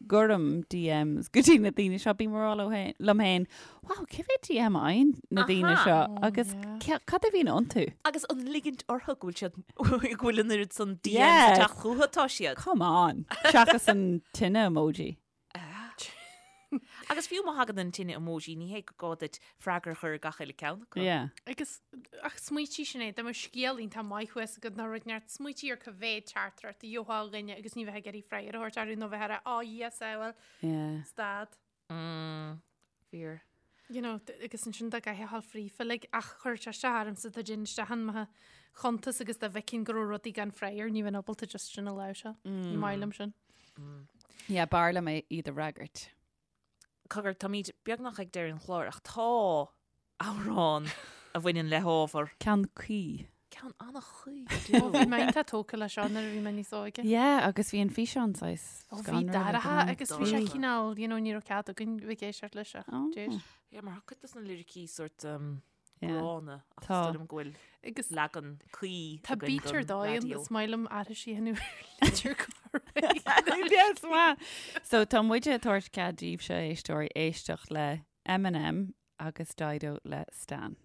gcuirim DMs go dtí na daoine seo, bím ag rá liom féin, wow, cé mhéad DM a fhaigheann na daoine Aha. seo Oh, agus yeah. ce- cad a bhíonn iontu? Agus an ligint orthu go bhfuil siad go bhfuil an oiread san DMs Yeah. ag teacht chucu atá siad. Come on. Seachas an tine emoji. Agus fiú má thagann an tine emoji, ní hé go gá duit freagra a chur ar gach uile ceann acu. Yeah. Agus ach smaoitigh sin é, dá mbeadh scéal iontach maith thuas agat nó rud inteacht, smaoitigh ar cá mhéad teachtaireacht a gheofá ó dhuine agus ní bheith ag iarraidh freagra a thabhairt orthu nó bheith ag rá, oh yes, I will, Yeah. stad. Mm, fíor. You know, agus ansin dá gcaithfeá a ghabháil fríofa, like, ach chuir sé isteach ormsa dá dtéinn isteach in mo chuntas agus dá bhfeicfinn go raibh rudaí gan freagra, ní bheinn ábalta just sin a láimhseáil. Ní maith liom sin. Yeah, b'fhearr liom é iad a fhreagairt. Cogar, táimid beagnach ag deireadh an chláir ach tá amhrán a bhaineann le hábhar. Ceann cuí. Ceann an-chuí. Ó, bhí mé iontach tógtha leis seo nuair a bhí mé níos óige. Yeah, agus bhí an físeán saghas Ó, bhí scanrúil ag an dorcha am. agus bhí sé Dorcha. cineál, you know, ní raibh cead againn bheith ag éisteacht leis ach Oh. d'éist. Yeah, mar tá cuid dos na liricí sort um, Yeah. gránna ach Tá. is dóigh liom go bhfuil Agus leagan cuí tá againn beat ar don dóigh raidió. is maith liom aithris a dhéanamh ar litir Galway. Yes, maith. So tá muide ag tabhairt cead daoibhse éisteoirí éisteacht le Eminem agus Dido le Stan.